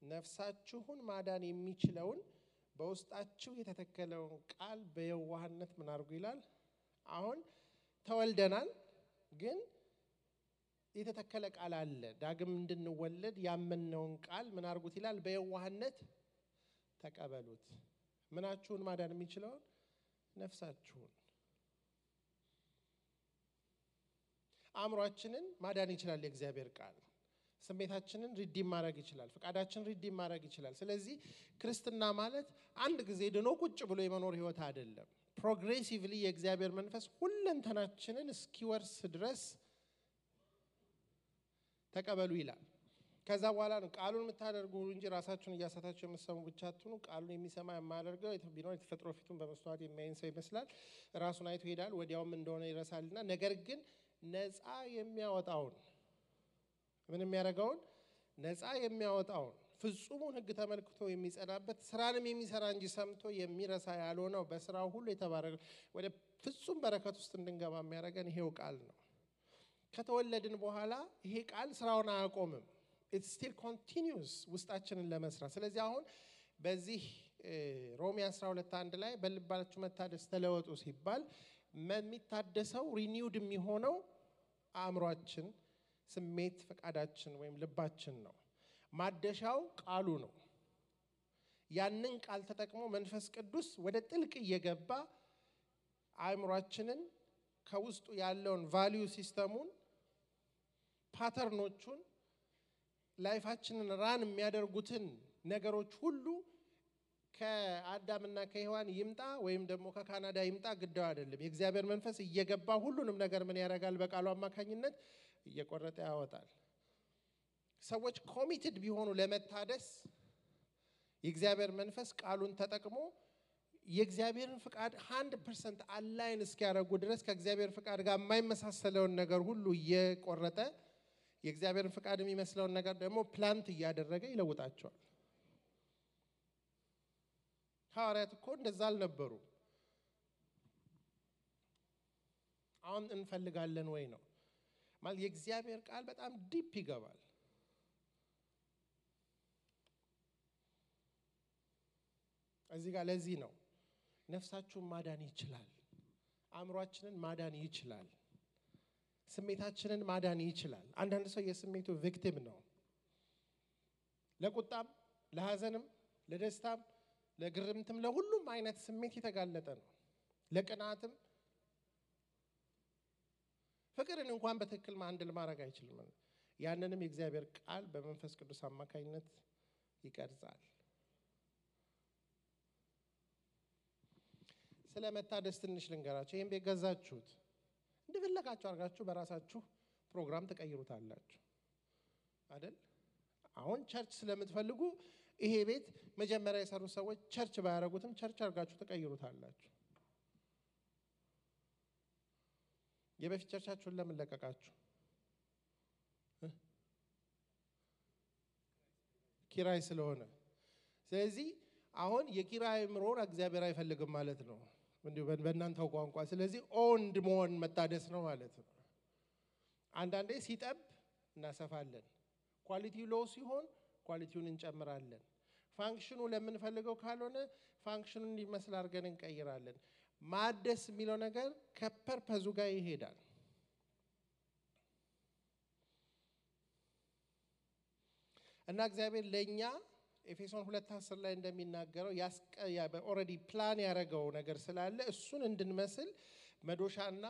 ነፍሳችሁን ማዳን የሚችለውን በውስጣችሁ የተተከለውን ቃል በየዋህነት ምን አድርጉ ይላል። አሁን ተወልደናል፣ ግን የተተከለ ቃል አለ። ዳግም እንድንወለድ ያመነውን ቃል ምን አድርጉት ይላል? በየዋህነት ተቀበሉት። ምናችሁን ማዳን የሚችለውን? ነፍሳችሁን። አእምሮአችንን ማዳን ይችላል የእግዚአብሔር ቃል። ስሜታችንን ሪዲም ማድረግ ይችላል። ፍቃዳችንን ሪዲም ማድረግ ይችላል። ስለዚህ ክርስትና ማለት አንድ ጊዜ ድኖ ቁጭ ብሎ የመኖር ህይወት አይደለም። ፕሮግሬሲቭሊ የእግዚአብሔር መንፈስ ሁለንተናችንን እስኪወርስ ድረስ ተቀበሉ ይላል። ከዛ በኋላ ነው ቃሉን የምታደርጉ እንጂ ራሳችሁን እያሳታችሁ የምትሰሙ ብቻ አትሁኑ። ቃሉን የሚሰማ የማያደርገው ቢኖር የተፈጥሮ ፊቱን በመስተዋት የሚያይን ሰው ይመስላል። ራሱን አይቶ ይሄዳል፣ ወዲያውም እንደሆነ ይረሳልና። ነገር ግን ነፃ የሚያወጣውን ምን የሚያደርገውን? ነፃ የሚያወጣውን ፍጹሙን ሕግ ተመልክቶ የሚጸናበት ስራንም የሚሰራ እንጂ ሰምቶ የሚረሳ ያልሆነው በስራው ሁሉ የተባረከ ወደ ፍጹም በረከት ውስጥ እንድንገባ የሚያደርገን ይሄው ቃል ነው። ከተወለድን በኋላ ይሄ ቃል ስራውን አያቆምም። it still continues ውስጣችንን ለመስራት። ስለዚህ አሁን በዚህ ሮሜ 12:1 ላይ በልባችሁ መታደስ ተለወጡ ሲባል የሚታደሰው ሪኒውድ የሚሆነው አእምሮአችን፣ ስሜት፣ ፈቃዳችን ወይም ልባችን ነው። ማደሻው ቃሉ ነው። ያንን ቃል ተጠቅሞ መንፈስ ቅዱስ ወደ ጥልቅ እየገባ አእምሮአችንን ከውስጡ ያለውን ቫልዩ ሲስተሙን፣ ፓተርኖቹን፣ ላይፋችንን ራን የሚያደርጉትን ነገሮች ሁሉ ከአዳምና ከሔዋን ይምጣ ወይም ደግሞ ከካናዳ ይምጣ ግዳው አይደለም። የእግዚአብሔር መንፈስ እየገባ ሁሉንም ነገር ምን ያደርጋል? በቃሉ አማካኝነት እየቆረጠ ያወጣል። ሰዎች ኮሚትድ ቢሆኑ ለመታደስ የእግዚአብሔር መንፈስ ቃሉን ተጠቅሞ የእግዚአብሔርን ፍቃድ 100% አላይን እስኪያደርጉ ድረስ ከእግዚአብሔር ፍቃድ ጋር የማይመሳሰለውን ነገር ሁሉ እየቆረጠ የእግዚአብሔርን ፍቃድ የሚመስለውን ነገር ደግሞ ፕላንት እያደረገ ይለውጣቸዋል። ሐዋርያት እኮ እንደዛ አልነበሩ። አሁን እንፈልጋለን ወይ ነው ማለት የእግዚአብሔር ቃል በጣም ዲፕ ይገባል። እዚህ ጋር ለዚህ ነው ነፍሳችሁን ማዳን ይችላል፣ አእምሮአችንን ማዳን ይችላል። ስሜታችንን ማዳን ይችላል። አንዳንድ ሰው የስሜቱ ቪክቲም ነው። ለቁጣም፣ ለሐዘንም፣ ለደስታም፣ ለግርምትም ለሁሉም አይነት ስሜት የተጋለጠ ነው። ለቅናትም ፍቅርን እንኳን በትክክል ማንድል ማድረግ አይችልም። ያንንም የእግዚአብሔር ቃል በመንፈስ ቅዱስ አማካኝነት ይቀርጻል። ስለ መታደስ ትንሽ ልንገራችሁ። ይሄን ቤት ገዛችሁት እንደፈለጋችሁ አድርጋችሁ በራሳችሁ ፕሮግራም ተቀይሩታላችሁ አይደል? አሁን ቸርች ስለምትፈልጉ ይሄ ቤት መጀመሪያ የሰሩ ሰዎች ቸርች ባያረጉትም ቸርች አድርጋችሁ ተቀይሩታላችሁ። የበፊት ቸርቻችሁን ለምን ለቀቃችሁ? ኪራይ ስለሆነ። ስለዚህ አሁን የኪራይ ምሮር እግዚአብሔር አይፈልግም ማለት ነው እንዴ በእናንተው ቋንቋ። ስለዚህ ኦንድ መሆን መታደስ ነው ማለት ነው። አንዳንዴ ሲጠብ እናሰፋለን። ኳሊቲው ሎው ሲሆን ኳሊቲውን እንጨምራለን። ፋንክሽኑ ለምንፈልገው ካልሆነ ፋንክሽኑን እንዲመስል አድርገን እንቀይራለን። ማደስ የሚለው ነገር ከፐርፐዙ ጋር ይሄዳል። እና እግዚአብሔር ለኛ ኤፌሶን 2:10 ላይ እንደሚናገረው ኦሬዲ ፕላን ያደረገው ነገር ስላለ እሱን እንድንመስል መዶሻና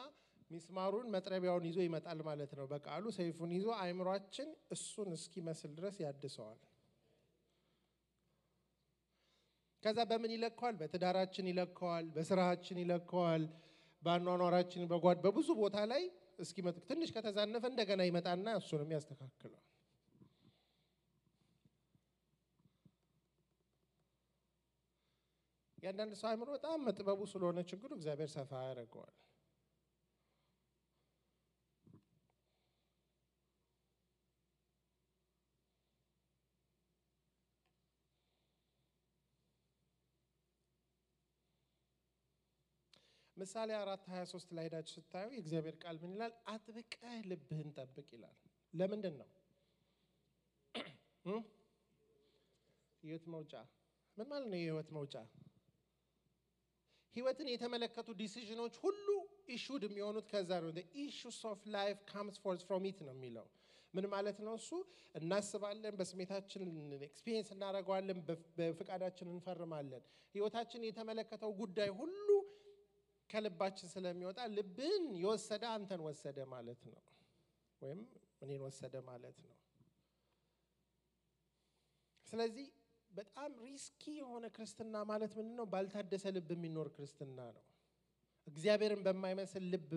ሚስማሩን መጥረቢያውን ይዞ ይመጣል ማለት ነው። በቃሉ ሰይፉን ይዞ አእምሯችን እሱን እስኪመስል ድረስ ያድሰዋል። ከዛ በምን ይለካዋል? በትዳራችን ይለካዋል፣ በስራችን ይለካዋል፣ በአኗኗራችን በብዙ ቦታ ላይ እስኪመጥ ትንሽ ከተዛነፈ እንደገና ይመጣና እሱንም ያስተካክላል። ያንዳንድ ሰው አእምሮ በጣም መጥበቡ ስለሆነ ችግሩ እግዚአብሔር ሰፋ ያደርገዋል። ምሳሌ 4:23 ላይ ሄዳችሁ ስታዩ የእግዚአብሔር ቃል ምን ይላል? አጥብቀህ ልብህን ጠብቅ ይላል። ለምንድን ነው? ህይወት መውጫ ምን ማለት ነው? የህይወት መውጫ ህይወትን የተመለከቱ ዲሲዥኖች ሁሉ ኢሹድ የሚሆኑት ከዛ ነው። the issues of life comes forth from it ነው የሚለው። ምን ማለት ነው? እሱ እናስባለን፣ በስሜታችን ኤክስፒሪየንስ እናደርገዋለን፣ በፍቃዳችን እንፈርማለን። ህይወታችን የተመለከተው ጉዳይ ሁሉ ከልባችን ስለሚወጣ ልብን የወሰደ አንተን ወሰደ ማለት ነው፣ ወይም እኔን ወሰደ ማለት ነው። ስለዚህ በጣም ሪስኪ የሆነ ክርስትና ማለት ምንድነው? ባልታደሰ ልብ የሚኖር ክርስትና ነው። እግዚአብሔርን በማይመስል ልብ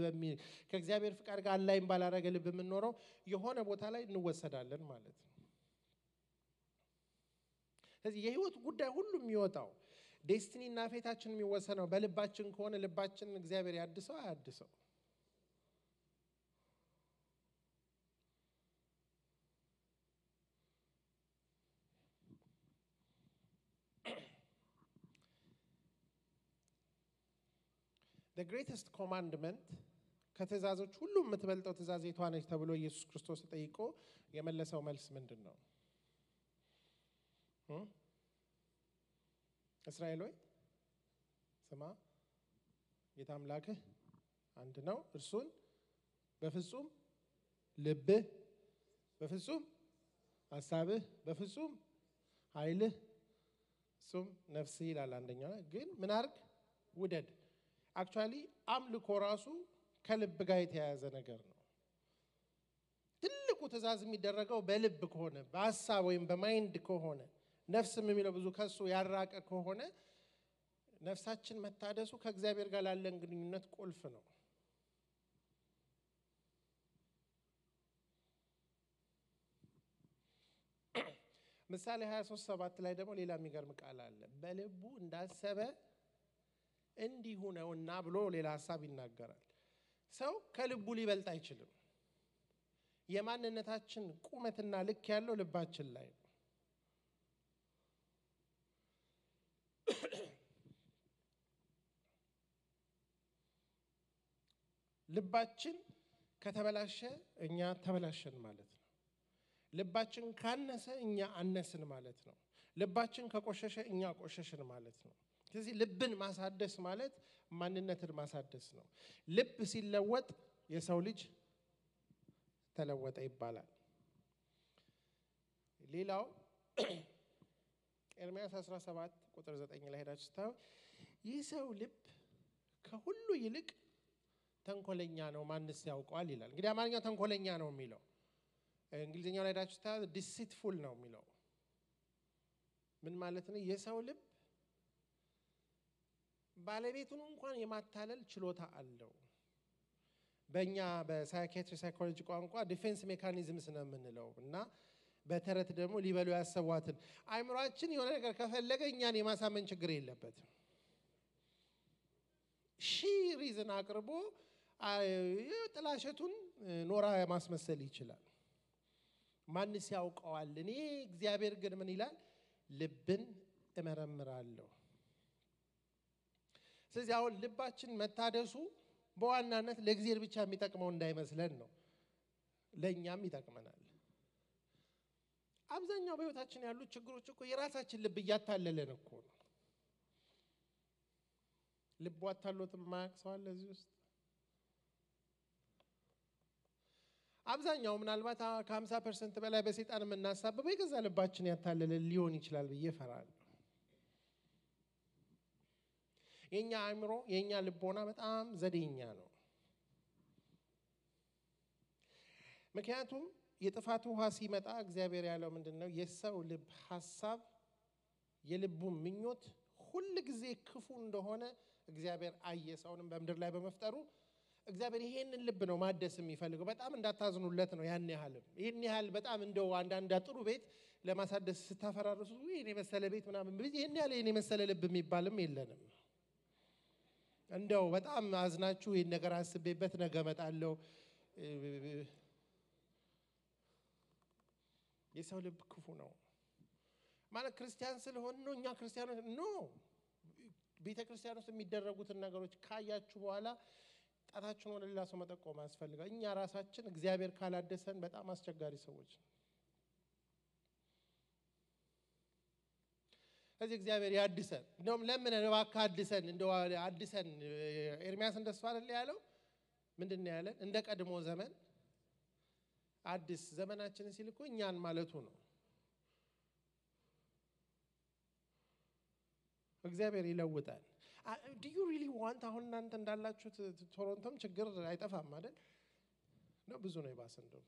ከእግዚአብሔር ፍቃድ ጋር አላይም ባላረገ ልብ የምንኖረው የሆነ ቦታ ላይ እንወሰዳለን ማለት ነው። ስለዚህ የህይወት ጉዳይ ሁሉ የሚወጣው ዴስቲኒና ፌታችን የሚወሰነው በልባችን ከሆነ ልባችን እግዚአብሔር ያድሰው አያድሰው? The greatest commandment ከትእዛዞች ሁሉ የምትበልጠው ትእዛዝ የቷ ነች ተብሎ ኢየሱስ ክርስቶስ ተጠይቆ የመለሰው መልስ ምንድን ነው? እስራኤል ሆይ ስማ፣ ጌታ አምላክህ አንድ ነው፣ እርሱን በፍጹም ልብህ፣ በፍጹም ሐሳብህ፣ በፍጹም ኃይልህ፣ እሱም ነፍስህ ይላል። አንደኛው ግን ምን አድርግ? ውደድ። አክቹአሊ አምልኮ ራሱ ከልብ ጋር የተያያዘ ነገር ነው። ትልቁ ትእዛዝ የሚደረገው በልብ ከሆነ በሐሳብ ወይም በማይንድ ከሆነ ነፍስም የሚለው ብዙ ከሱ ያራቀ ከሆነ ነፍሳችን መታደሱ ከእግዚአብሔር ጋር ላለን ግንኙነት ቁልፍ ነው። ምሳሌ 23:7 ላይ ደግሞ ሌላ የሚገርም ቃል አለ። በልቡ እንዳሰበ እንዲሁ ነውና ብሎ ሌላ ሐሳብ ይናገራል። ሰው ከልቡ ሊበልጥ አይችልም። የማንነታችን ቁመትና ልክ ያለው ልባችን ላይ ነው። ልባችን ከተበላሸ እኛ ተበላሸን ማለት ነው። ልባችን ካነሰ እኛ አነስን ማለት ነው። ልባችን ከቆሸሸ እኛ ቆሸሽን ማለት ነው። ስለዚህ ልብን ማሳደስ ማለት ማንነትን ማሳደስ ነው። ልብ ሲለወጥ የሰው ልጅ ተለወጠ ይባላል። ሌላው ኤርምያስ 17 ቁጥር 9 ላይ ሄዳችሁ ስታዩ ይህ ሰው ልብ ከሁሉ ይልቅ ተንኮለኛ ነው ማንስ ያውቀዋል ይላል። እንግዲህ አማርኛው ተንኮለኛ ነው የሚለው እንግሊዝኛው ላይ ሄዳችሁ ስታዩ ዲሲትፉል ነው የሚለው ምን ማለት ነው? የሰው ልብ ባለቤቱን እንኳን የማታለል ችሎታ አለው። በእኛ በሳይኪያትሪ ሳይኮሎጂ ቋንቋ ዲፌንስ ሜካኒዝምስ ነው የምንለው እና በተረት ደግሞ ሊበሉ ያሰቧትን አይምሮአችን የሆነ ነገር ከፈለገ እኛን የማሳመን ችግር የለበትም። ሪዝን አቅርቦ ጥላሸቱን ኖራ ማስመሰል ይችላል። ማንስ ያውቀዋል? እኔ እግዚአብሔር ግን ምን ይላል? ልብን እመረምራለሁ። ስለዚህ አሁን ልባችን መታደሱ በዋናነት ለእግዚአብሔር ብቻ የሚጠቅመው እንዳይመስለን ነው፣ ለኛም ይጠቅመናል። አብዛኛው በህይወታችን ያሉ ችግሮች እኮ የራሳችን ልብ እያታለለን እኮ ነው። ልብ አታሎት ማያቅ ሰው አለ እዚህ ውስጥ? አብዛኛው ምናልባት ከ50% በላይ በሰይጣን የምናሳብበው የገዛ ልባችን ያታለለ ሊሆን ይችላል ብዬ እፈራለሁ። የኛ አእምሮ የኛ ልቦና በጣም ዘዴኛ ነው። ምክንያቱም የጥፋት ውሃ ሲመጣ እግዚአብሔር ያለው ምንድነው? የሰው ልብ ሐሳብ የልቡ ምኞት ሁሉ ጊዜ ክፉ እንደሆነ እግዚአብሔር አየ። ሰውንም በመድር ላይ በመፍጠሩ እግዚአብሔር ይሄንን ልብ ነው ማደስ የሚፈልገው። በጣም እንዳታዝኑለት ነው ያን ያህል በጣም እንደው አንዳንድ ጥሩ ቤት ለማሳደስ ስታፈራርሱ ይሄን የመሰለ ቤት ምናምን ይሄን ያህል ይሄን የመሰለ ልብ የሚባልም የለንም። እንደው በጣም አዝናችሁ ይሄን ነገር አስቤበት ነገ እመጣለሁ። የሰው ልብ ክፉ ነው ማለት ክርስቲያን ስለሆነ ነው እኛ ክርስቲያኖች ነው። ቤተ ክርስቲያን ውስጥ የሚደረጉትን ነገሮች ካያችሁ በኋላ ጣታችሁን ወደ ሌላ ሰው መጠቆም ያስፈልጋል። እኛ ራሳችን እግዚአብሔር ካላደሰን በጣም አስቸጋሪ ሰዎች ነን። ስለዚህ እግዚአብሔር ያድሰን። እንደውም ለምን እባክህ አድሰን እንደው አድሰን ኤርምያስ እንደሱ አይደል ያለው? ምንድነው ያለን? እንደ ቀድሞ ዘመን አዲስ ዘመናችንን ሲል እኮ እኛን ማለቱ ነው። እግዚአብሔር ይለውጣል። do you really want አሁን እናንተ እንዳላችሁት ቶሮንቶም ችግር አይጠፋም አይደል? ነው ብዙ ነው ይባስ እንደው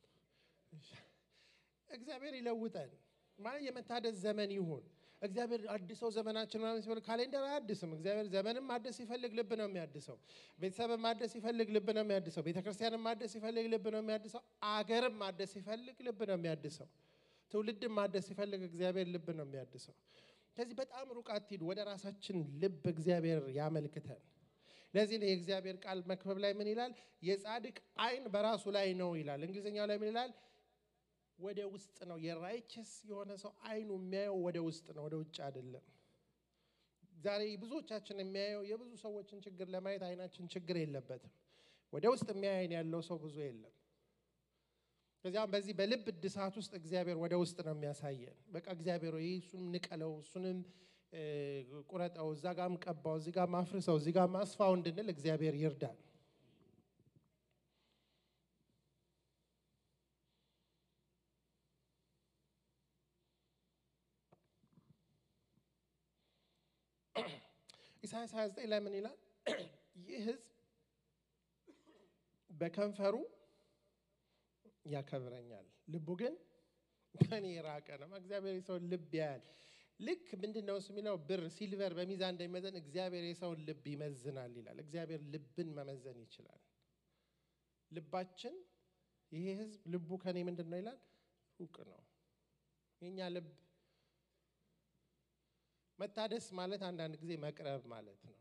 እግዚአብሔር ይለውጣል ማለት የመታደስ ዘመን ይሁን። እግዚአብሔር አዲስው ዘመናችን ማለት ሲሆን ካሌንደር አያድስም። እግዚአብሔር ዘመንም ማደስ ይፈልግ ልብ ነው የሚያድሰው። ቤተሰብም ማደስ ይፈልግ ልብ ነው የሚያድሰው። ቤተክርስቲያንም ማደስ ይፈልግ ልብ ነው የሚያድሰው። አገርም ማደስ ይፈልግ ልብ ነው የሚያድሰው። ትውልድም ማደስ ይፈልግ እግዚአብሔር ልብ ነው የሚያድሰው። ስለዚህ በጣም ሩቅ አትሂዱ፣ ወደ ራሳችን ልብ እግዚአብሔር ያመልክተን። ለዚህ ነው የእግዚአብሔር ቃል መክብብ ላይ ምን ይላል? የጻድቅ አይን በራሱ ላይ ነው ይላል። እንግሊዝኛው ላይ ምን ይላል? ወደ ውስጥ ነው። የራይቸስ የሆነ ሰው አይኑ የሚያየው ወደ ውስጥ ነው፣ ወደ ውጭ አይደለም። ዛሬ ብዙዎቻችን የሚያየው የብዙ ሰዎችን ችግር ለማየት አይናችን ችግር የለበትም። ወደ ውስጥ የሚያየን ያለው ሰው ብዙ የለም። ከዚያም በዚህ በልብ እድሳት ውስጥ እግዚአብሔር ወደ ውስጥ ነው የሚያሳየን። በቃ እግዚአብሔር ወይ እሱን ንቀለው፣ እሱንም ቁረጠው፣ እዛ ጋርም ቀባው፣ እዚህ ጋርም አፍርሰው፣ እዚህ ጋርም አስፋው እንድንል እግዚአብሔር ይርዳን። ኢሳይያስ 29 ላይ ምን ይላል? ይህ ሕዝብ በከንፈሩ ያከብረኛል፣ ልቡ ግን ከኔ የራቀ ነው። እግዚአብሔር የሰውን ልብ ያያል። ልክ ምንድነው እሱ የሚለው? ብር ሲልቨር በሚዛን እንደሚመዘን እግዚአብሔር የሰውን ልብ ይመዝናል ይላል። እግዚአብሔር ልብን መመዘን ይችላል። ልባችን ይሄ ሕዝብ ልቡ ከኔ ምንድነው ይላል? ሩቅ ነው። የኛ ልብ መታደስ ማለት አንዳንድ ጊዜ መቅረብ ማለት ነው።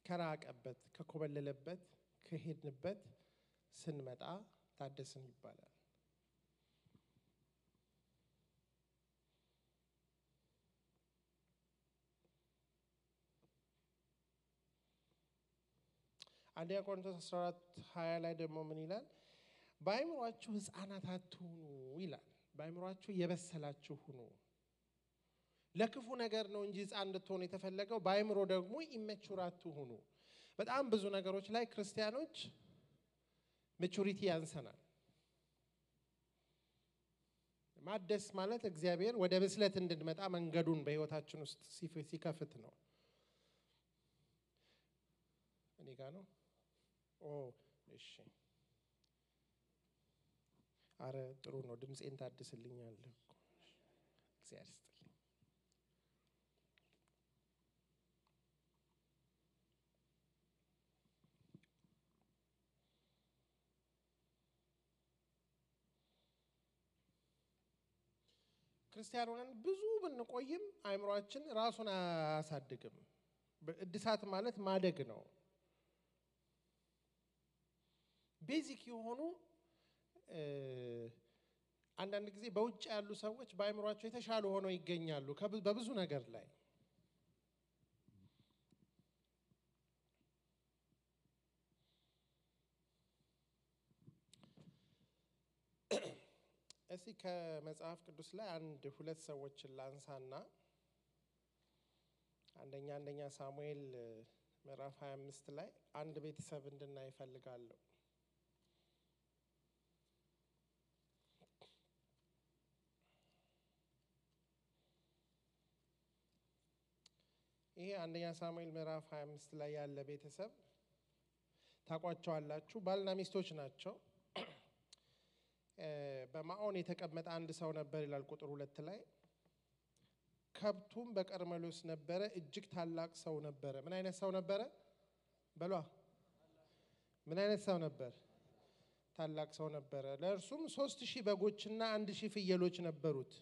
ከራቀበት ከኮበለለበት ከሄድንበት ስንመጣ ታደስን ይባላል። አንደኛ ቆሮንቶስ 14:20 ላይ ደግሞ ምን ይላል? በአእምሮአችሁ ሕፃናት አትሁኑ ይላል። በአእምሮአችሁ የበሰላችሁ ሁኑ። ለክፉ ነገር ነው እንጂ ሕፃን እንድትሆኑ የተፈለገው። በአእምሮ ደግሞ ኢሜቹር አትሁኑ። በጣም ብዙ ነገሮች ላይ ክርስቲያኖች ማቹሪቲ ያንሰናል። ማደስ ማለት እግዚአብሔር ወደ ብስለት እንድንመጣ መንገዱን በህይወታችን ውስጥ ሲከፍት ነው። እኔ ጋር ነው። እሺ አረ ጥሩ ነው። ድምጼን ታድስልኛለህ እኮ እግዚአብሔር ይስጥልኝ። ክርስቲያኖችን ብዙ ብንቆይም አይምሮአችን ራሱን አያሳድግም። እድሳት ማለት ማደግ ነው። ቤዚክ የሆኑ አንዳንድ ጊዜ በውጭ ያሉ ሰዎች በአይምሮአቸው የተሻሉ ሆነው ይገኛሉ በብዙ ነገር ላይ። እስቲ ከመጽሐፍ ቅዱስ ላይ አንድ ሁለት ሰዎችን ላንሳና አንደኛ ሳሙኤል ምዕራፍ 25 ላይ አንድ ቤተሰብ እንድናይ እፈልጋለሁ። ይሄ አንደኛ ሳሙኤል ምዕራፍ 25 ላይ ያለ ቤተሰብ ታቋቸዋላችሁ። ባልና ሚስቶች ናቸው። በማዖን የተቀመጠ አንድ ሰው ነበር ይላል ቁጥር 2 ላይ። ከብቱም በቀርሜሎስ ነበረ፣ እጅግ ታላቅ ሰው ነበረ። ምን አይነት ሰው ነበረ? በሏ። ምን አይነት ሰው ነበር? ታላቅ ሰው ነበረ። ለእርሱም 3000 በጎችና 1000 ፍየሎች ነበሩት።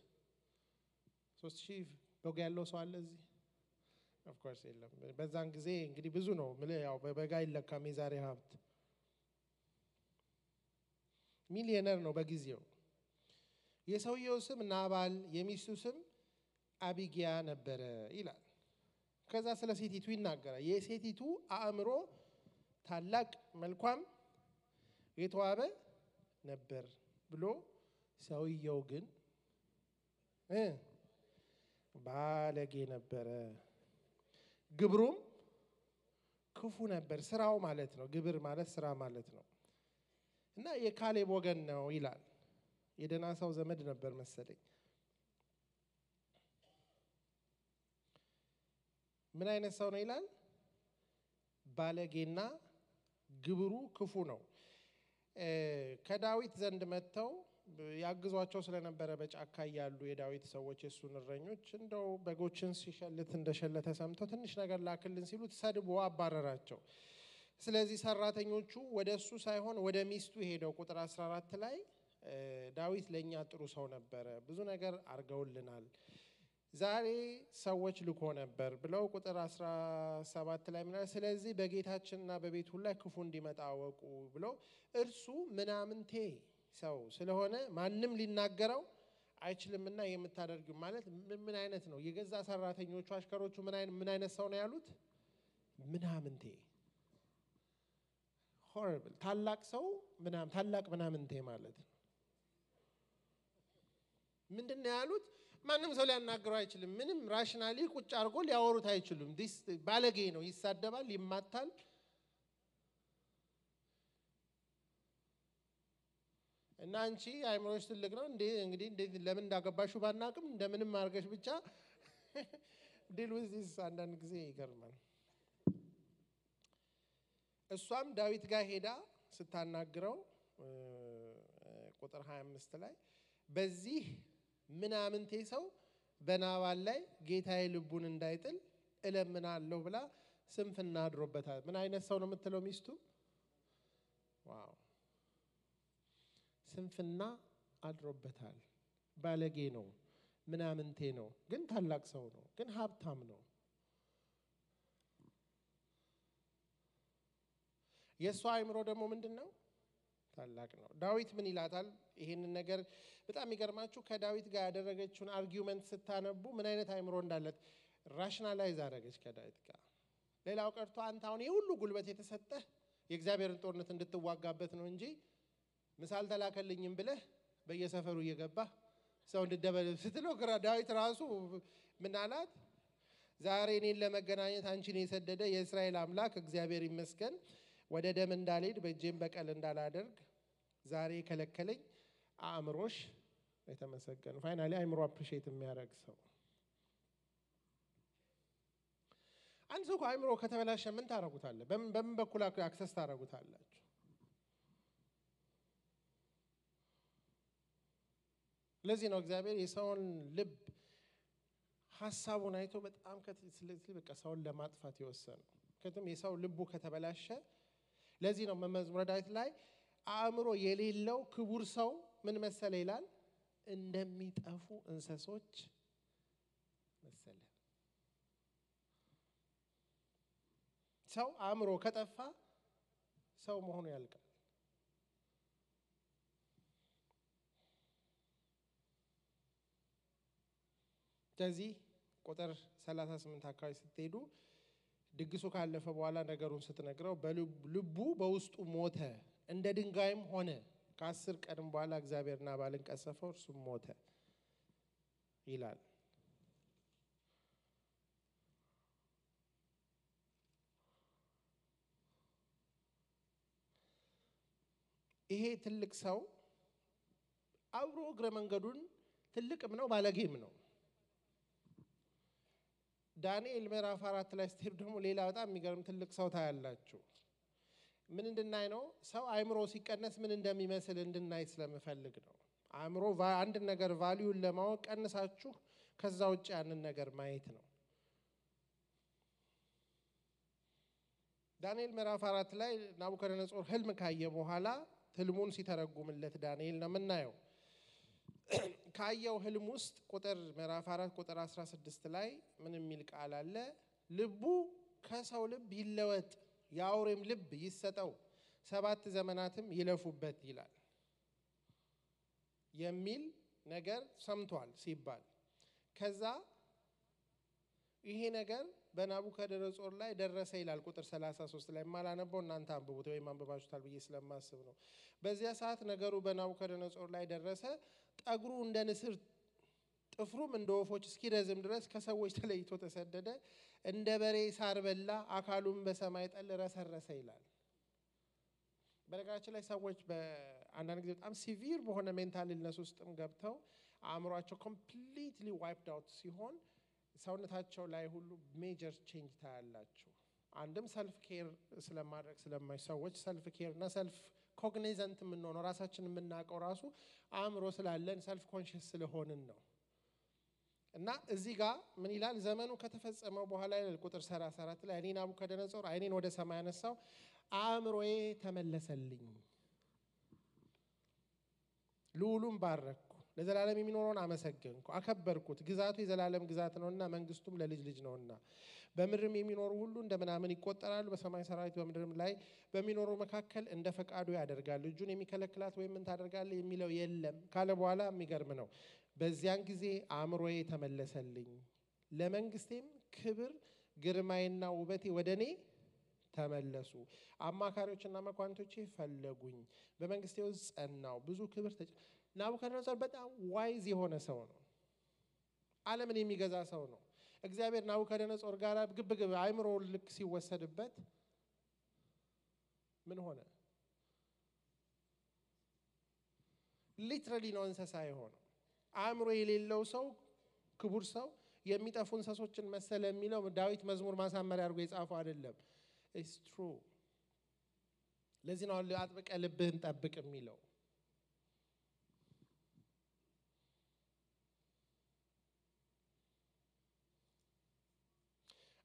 3000 በግ ያለው ሰው አለ እዚህ? ኦፍ ኮርስ የለም። በዛን ጊዜ እንግዲህ ብዙ ነው። ያው በበጋ ይለካም የዛሬ ሀብት። ሚሊዮነር ነው በጊዜው። የሰውየው ስም ናባል፣ የሚስቱ ስም አቢጊያ ነበረ ይላል። ከዛ ስለ ሴቲቱ ይናገራል። የሴቲቱ አእምሮ ታላቅ መልኳም የተዋበ ነበር ብሎ ሰውየው ግን ባለጌ ነበረ፣ ግብሩም ክፉ ነበር። ስራው ማለት ነው። ግብር ማለት ስራ ማለት ነው። እና የካሌብ ወገን ነው ይላል። የደና ሰው ዘመድ ነበር መሰለኝ። ምን አይነት ሰው ነው ይላል? ባለጌና ግብሩ ክፉ ነው። ከዳዊት ዘንድ መጥተው ያግዟቸው ስለነበረ በጫካ ያሉ የዳዊት ሰዎች የሱን እረኞች እንደው በጎችን ሲሸልት እንደሸለተ ሰምተው ትንሽ ነገር ላክልን ሲሉት ሰድቦ አባረራቸው። ስለዚህ ሰራተኞቹ ወደሱ ሳይሆን ወደ ሚስቱ ሄደው ቁጥር 14 ላይ ዳዊት ለኛ ጥሩ ሰው ነበረ፣ ብዙ ነገር አርገውልናል፣ ዛሬ ሰዎች ልኮ ነበር ብለው ቁጥር 17 ላይ ምናል ስለዚህ በጌታችንና በቤቱ ላይ ክፉ እንዲመጣ አወቁ ብለው እርሱ ምናምንቴ ሰው ስለሆነ ማንም ሊናገረው አይችልምና የምታደርጊው ማለት ምን አይነት ነው? የገዛ ሰራተኞቹ አሽከሮቹ ምን አይነት ሰው ነው ያሉት? ምናምንቴ horrible ታላቅ ሰው ታላቅ ምናምንቴ ማለት ነው። ምንድነው ያሉት? ማንም ሰው ሊያናገረው አይችልም። ምንም ራሽናሊ ቁጭ አድርጎ ሊያወሩት አይችሉም። ዲስ ባለጌ ነው፣ ይሳደባል፣ ይማታል። እና አንቺ አይምሮሽ ትልቅ ነው እንዴ? እንግዲህ ለምን እንዳገባሹ ባናቅም እንደምንም አርገሽ ብቻ ዲል ዊዝ ዲስ። አንዳንድ ጊዜ ይገርማል። እሷም ዳዊት ጋር ሄዳ ስታናግረው ቁጥር 25 ላይ በዚህ ምናምንቴ ሰው በናባል ላይ ጌታዬ ልቡን እንዳይጥል እለምናለሁ ብላ ስንፍና አድሮበታል። ምን አይነት ሰው ነው የምትለው ሚስቱ? ዋው! ስንፍና አድሮበታል። ባለጌ ነው፣ ምናምንቴ ነው፣ ግን ታላቅ ሰው ነው፣ ግን ሀብታም ነው። የሷ አይምሮ ደግሞ ምንድነው? ታላቅ ነው። ዳዊት ምን ይላታል? ይሄንን ነገር በጣም ይገርማችሁ። ከዳዊት ጋር ያደረገችውን አርጊውመንት ስታነቡ ምን አይነት አይምሮ እንዳለት ራሽናላይዝ አደረገች ከዳዊት ጋር። ሌላው ቀርቶ አንተ አሁን የሁሉ ጉልበት የተሰጠህ የእግዚአብሔርን ጦርነት እንድትዋጋበት ነው እንጂ ምሳል ተላከልኝም ብለህ በየሰፈሩ እየገባህ ሰው እንድደበደብ ስትለው ግራ ዳዊት ራሱ ምን አላት? ዛሬ እኔን ለመገናኘት አንቺን የሰደደ የእስራኤል አምላክ እግዚአብሔር ይመስገን፣ ወደ ደም እንዳልሄድ በእጄም በቀል እንዳላደርግ ዛሬ ከለከለኝ አእምሮሽ የተመሰገነ ፋይናሊ አእምሮ አፕሪሺየት የሚያደርግ ሰው አንድ ሰው አእምሮ ከተበላሸ ምን ታረጉታለህ በምን በኩል አክሰስ ታረጉታላችሁ ለዚህ ነው እግዚአብሔር የሰውን ልብ ሐሳቡን አይቶ በጣም ስለዚህ በቃ ሰውን ለማጥፋት ይወሰነው ከቱም የሰው ልቡ ከተበላሸ ለዚህ ነው መዝሙረ ዳዊት ላይ አእምሮ የሌለው ክቡር ሰው ምን መሰለ ይላል እንደሚጠፉ እንስሶች መሰለ ሰው አእምሮ ከጠፋ ሰው መሆኑ ያልቃል ስለዚህ ቁጥር 38 አካባቢ ስትሄዱ ድግሱ ካለፈ በኋላ ነገሩን ስትነግረው በልቡ በውስጡ ሞተ እንደ ድንጋይም ሆነ ከ10 ቀን በኋላ እግዚአብሔር ናባልን ቀሰፈው እርሱም ሞተ ይላል ይሄ ትልቅ ሰው አብሮ እግረ መንገዱን ትልቅም ነው ባለጌም ነው ዳንኤል ምዕራፍ 4 ላይ ስትሄዱ ደግሞ ሌላ በጣም የሚገርም ትልቅ ሰው ታያላችሁ ምን እንድናይ ነው ሰው አእምሮ ሲቀነስ ምን እንደሚመስል እንድናይ ስለምፈልግ ነው አእምሮ አንድ ነገር ቫልዩን ለማወቅ ቀንሳችሁ ከዛ ውጭ ያንን ነገር ማየት ነው ዳንኤል ምዕራፍ 4 ላይ ናቡከደነጾር ህልም ካየ በኋላ ህልሙን ሲተረጉምለት ዳንኤል ነው የምናየው ካየው ህልም ውስጥ ቁጥር ምዕራፍ 4 ቁጥር 16 ላይ ምን የሚል ቃል አለ ልቡ ከሰው ልብ ይለወጥ ያውሬም ልብ ይሰጠው 7 ዘመናትም ይለፉበት ይላል የሚል ነገር ሰምቷል ሲባል ከዛ ይሄ ነገር በናቡከደነጾር ላይ ደረሰ ይላል ቁጥር 33 ላይ ማላነበው እናንተ አንብቡት ወይ ማንበባችሁታል ብዬ ስለማስብ ነው በዚያ ሰዓት ነገሩ በናቡከደነጾር ላይ ደረሰ ጠግሩ እንደ ንስር ጥፍሩም እንደ ወፎች እስኪረዝም ድረስ ከሰዎች ተለይቶ ተሰደደ እንደ በሬ ሳር በላ አካሉም በሰማይ ጠል ረሰረሰ ይላል በነገራችን ላይ ሰዎች በአንዳንድ ጊዜ በጣም ሲቪር በሆነ ሜንታል ኢልነስ ውስጥም ገብተው አእምሯቸው ኮምፕሊትሊ ዋይፕድ አውት ሲሆን ሰውነታቸው ላይ ሁሉ ሜጀር ቼንጅ ታያላችሁ አንድም ሰልፍ ኬር ስለማድረግ ስለማይሰዎች ሰልፍ ኬር እና ሰልፍ ኮግኒዘንት ምን ነው ራሳችንን የምናቀው ራሱ አእምሮ ስላለን ሰልፍ ኮንሺየስ ስለሆንን ነው እና እዚህ ጋር ምን ይላል ዘመኑ ከተፈጸመው በኋላ ይላል ቁጥር 34 ላይ እኔ ናቡከደነጾር አይኔን ወደ ሰማይ አነሳው አእምሮዬ ተመለሰልኝ ልዑሉም ባረኩ ለዘላለም የሚኖረውን አመሰገንኩ አከበርኩት ግዛቱ የዘላለም ግዛት ነውና መንግስቱም ለልጅ ልጅ ነውና በምድርም የሚኖሩ ሁሉ እንደምናምን ይቆጠራሉ በሰማይ ሰራዊት በምድርም ላይ በሚኖሩ መካከል እንደ ፈቃዱ ያደርጋል እጁን የሚከለክላት ወይም ምን ታደርጋለህ የሚለው የለም ካለ በኋላ የሚገርም ነው በዚያን ጊዜ አእምሮዬ ተመለሰልኝ ለመንግስቴም ክብር ግርማዬና ውበቴ ወደኔ ተመለሱ አማካሪዎችና መኳንቶቼ ፈለጉኝ በመንግስቴ ውስጥ ጸናው ብዙ ክብር ናቡከደነጾር በጣም ዋይዝ የሆነ ሰው ነው ዓለምን የሚገዛ ሰው ነው እግዚአብሔር ናቡከደነጾር ጋር ግብግብ አእምሮ ልክ ሲወሰድበት ምን ሆነ ሊትራሊ ነው እንስሳ የሆነው አእምሮ የሌለው ሰው ክቡር ሰው የሚጠፉ እንስሶችን መሰለ የሚለው ዳዊት መዝሙር ማሳመሪያ አድርጎ የጻፈው አይደለም it's true ለዚህ ነው አጥብቀ ልብህን ጠብቅ የሚለው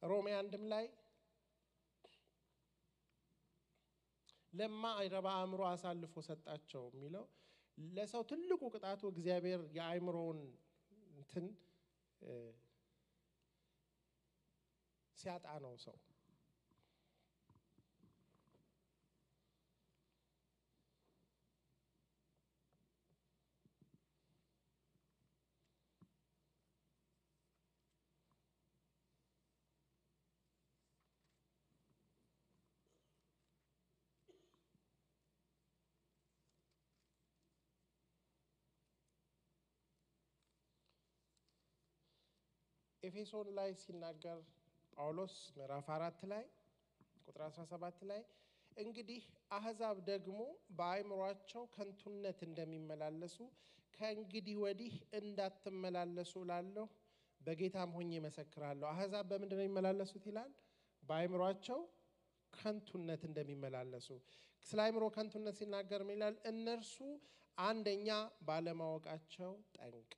ሮሜ 1 ላይ ለማ አይረባ አእምሮ አሳልፎ ሰጣቸው የሚለው ለሰው ትልቁ ቅጣቱ እግዚአብሔር የአእምሮውን እንትን ሲያጣ ነው ሰው ኤፌሶን ላይ ሲናገር ጳውሎስ ምዕራፍ 4 ላይ ቁጥር 17 ላይ እንግዲህ አሕዛብ ደግሞ በአእምሮአቸው ከንቱነት እንደሚመላለሱ ከእንግዲህ ወዲህ እንዳትመላለሱ እላለሁ፣ በጌታም ሆኜ እመሰክራለሁ። አሕዛብ በምንድን ነው የሚመላለሱት ይላል? በአእምሮአቸው ከንቱነት እንደሚመላለሱ። ስለ አእምሮ ከንቱነት ሲናገር ምን ይላል? እነርሱ አንደኛ ባለማወቃቸው ጠንቅ።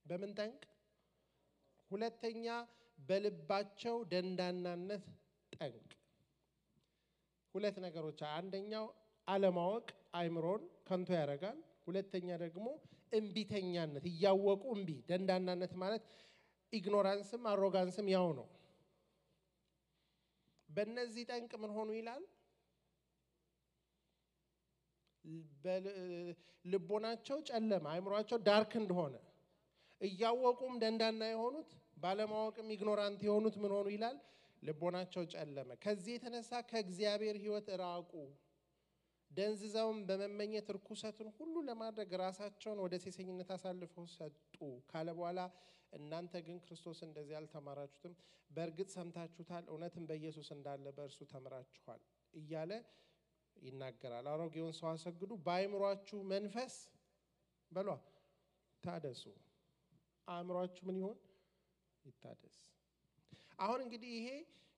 በምን ጠንቅ? ሁለተኛ በልባቸው ደንዳናነት ጠንቅ። ሁለት ነገሮች። አንደኛው አለማወቅ አእምሮን ከንቱ ያደርጋል። ሁለተኛ ደግሞ እምቢተኛነት፣ እያወቁ እምቢ። ደንዳናነት ማለት ኢግኖራንስም አሮጋንስም ያው ነው። በእነዚህ ጠንቅ ምን ሆኑ ይላል? ልቦናቸው ጨለማ፣ አእምሯቸው ዳርክ እንደሆነ እያወቁም ደንዳና የሆኑት ባለማወቅም ኢግኖራንት የሆኑት ምን ሆኑ ይላል? ልቦናቸው ጨለመ። ከዚህ የተነሳ ከእግዚአብሔር ሕይወት ራቁ፣ ደንዝዘውም በመመኘት ርኩሰትን ሁሉ ለማድረግ ራሳቸውን ወደ ሴሰኝነት አሳልፈው ሰጡ ካለ በኋላ እናንተ ግን ክርስቶስ እንደዚህ አልተማራችሁትም፣ በእርግጥ ሰምታችሁታል፣ እውነትም በኢየሱስ እንዳለ በእርሱ ተምራችኋል እያለ ይናገራል። አሮጌውን ሰው አሰግዱ፣ በአእምሯችሁ መንፈስ በሏ ታደሱ። አእምሯችሁ ምን ይሆን? ይታደስ። አሁን እንግዲህ ይሄ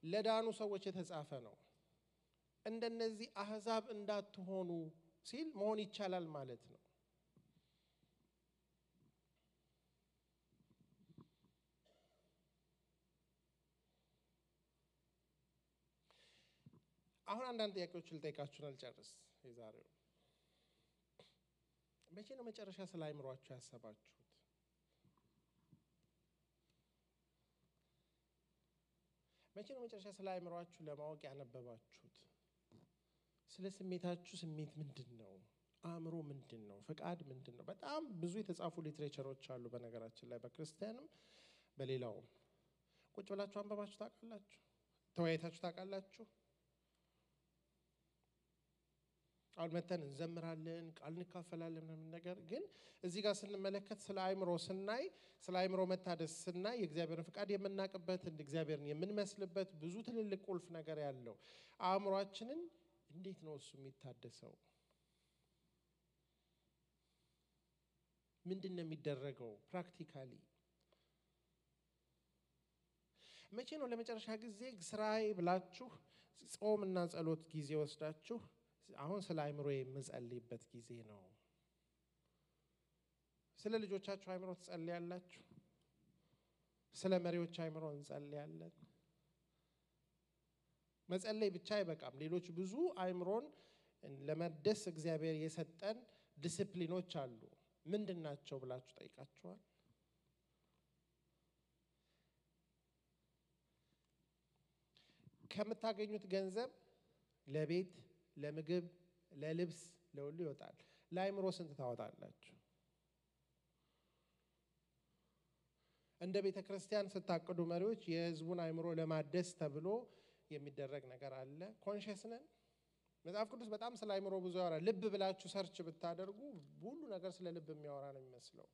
ለዳኑ ሰዎች የተጻፈ ነው። እንደነዚህ አሕዛብ እንዳትሆኑ ሲል መሆን ይቻላል ማለት ነው። አሁን አንዳንድ ጥያቄዎች ልጠይቃችሁን አልጨርስ። የዛሬው መቼ ነው መጨረሻ ስለ አእምሯችሁ ያሰባችሁት? መቼ ነው መጨረሻ ስለ አእምሯችሁ ለማወቅ ያነበባችሁት? ስለ ስሜታችሁ ስሜት ምንድን ነው? አእምሮ ምንድን ነው? ፈቃድ ምንድን ነው? በጣም ብዙ የተጻፉ ሊትሬቸሮች አሉ በነገራችን ላይ በክርስቲያንም በሌላውም። ቁጭ ብላችሁ አንበባችሁ ታውቃላችሁ? ተወያይታችሁ ታውቃላችሁ? አሁን መተን እንዘምራለን፣ ቃል እንካፈላለን ምናምን ነገር ግን እዚህ ጋር ስንመለከት ስለ አእምሮ ስናይ፣ ስለ አእምሮ መታደስ ስናይ የእግዚአብሔርን ፍቃድ የምናውቅበት እግዚአብሔርን የምንመስልበት ብዙ ትልልቅ ቁልፍ ነገር ያለው አእምሯችንን እንዴት ነው እሱ የሚታደሰው? ምንድን ነው የሚደረገው ፕራክቲካሊ? መቼ ነው ለመጨረሻ ጊዜ ስራዬ ብላችሁ ጾምና ጸሎት ጊዜ ወስዳችሁ አሁን ስለ አእምሮ የምጸልይበት ጊዜ ነው? ስለ ልጆቻችሁ አእምሮ ትጸልያላችሁ? ስለ መሪዎች አእምሮ እንጸልያለን? መጸለይ ብቻ አይበቃም። ሌሎች ብዙ አእምሮን ለመደስ እግዚአብሔር የሰጠን ዲሲፕሊኖች አሉ። ምንድን ናቸው ብላችሁ ጠይቃችኋል? ከምታገኙት ገንዘብ ለቤት፣ ለምግብ፣ ለልብስ፣ ለሁሉ ይወጣል። ለአእምሮ ስንት ታወጣላችሁ? እንደ ቤተ ክርስቲያን ስታቅዱ መሪዎች የህዝቡን አእምሮ ለማደስ ተብሎ የሚደረግ ነገር አለ። ኮንሽስ ነን? መጽሐፍ ቅዱስ በጣም ስለ አእምሮ ብዙ ያወራል። ልብ ብላችሁ ሰርች ብታደርጉ ሁሉ ነገር ስለ ልብ የሚያወራ ነው የሚመስለው።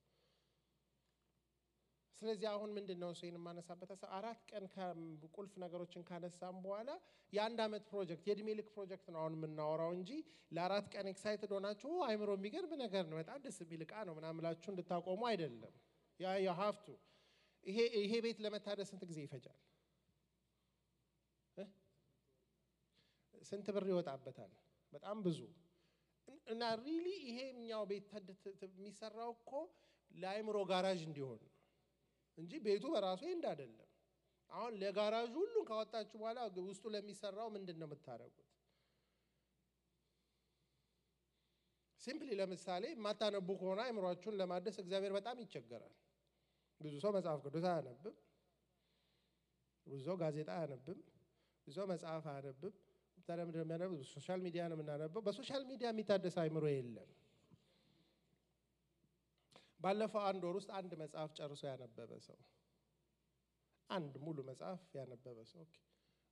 ስለዚህ አሁን ምንድነው እሱን ማነሳበት 4 ቀን ከቁልፍ ነገሮችን ካነሳም በኋላ የአንድ አመት ፕሮጀክት የእድሜ ልክ ፕሮጀክት ነው አሁን የምናወራው እንጂ ለ4 ቀን ኤክሳይትድ ሆናችሁ አእምሮ የሚገርም ነገር ነው በጣም ደስ የሚል ዕቃ ነው ምናምን ብላችሁ እንድታቆሙ አይደለም። ያ ሀፍቱ ይሄ ቤት ለመታደስ ስንት ጊዜ ይፈጃል? ስንት ብር ይወጣበታል? በጣም ብዙ። እና ሪሊ ይሄኛው ቤት የሚሰራው እኮ ለአእምሮ ጋራዥ እንዲሆን እንጂ ቤቱ በራሱ እንደ አይደለም። አሁን ለጋራዡ ሁሉን ካወጣችሁ በኋላ ውስጡ ለሚሰራው ምንድነው የምታደርጉት? ሲምፕሊ ለምሳሌ ማታነቡ ከሆነ አእምሮአችሁን ለማደስ እግዚአብሔር በጣም ይቸገራል። ብዙ ሰው መጽሐፍ ቅዱስ አያነብም፣ ብዙ ሰው ጋዜጣ አያነብም፣ ብዙ ሰው መጽሐፍ አያነብም። ታዲያ ምንድነው የሚያነበው? ሶሻል ሚዲያ ነው የምናነበው። በሶሻል ሚዲያ የሚታደስ አእምሮ የለም። ባለፈው 1 ወር ውስጥ አንድ መጽሐፍ ጨርሶ ያነበበ ሰው፣ አንድ ሙሉ መጽሐፍ ያነበበ ሰው ኦኬ፣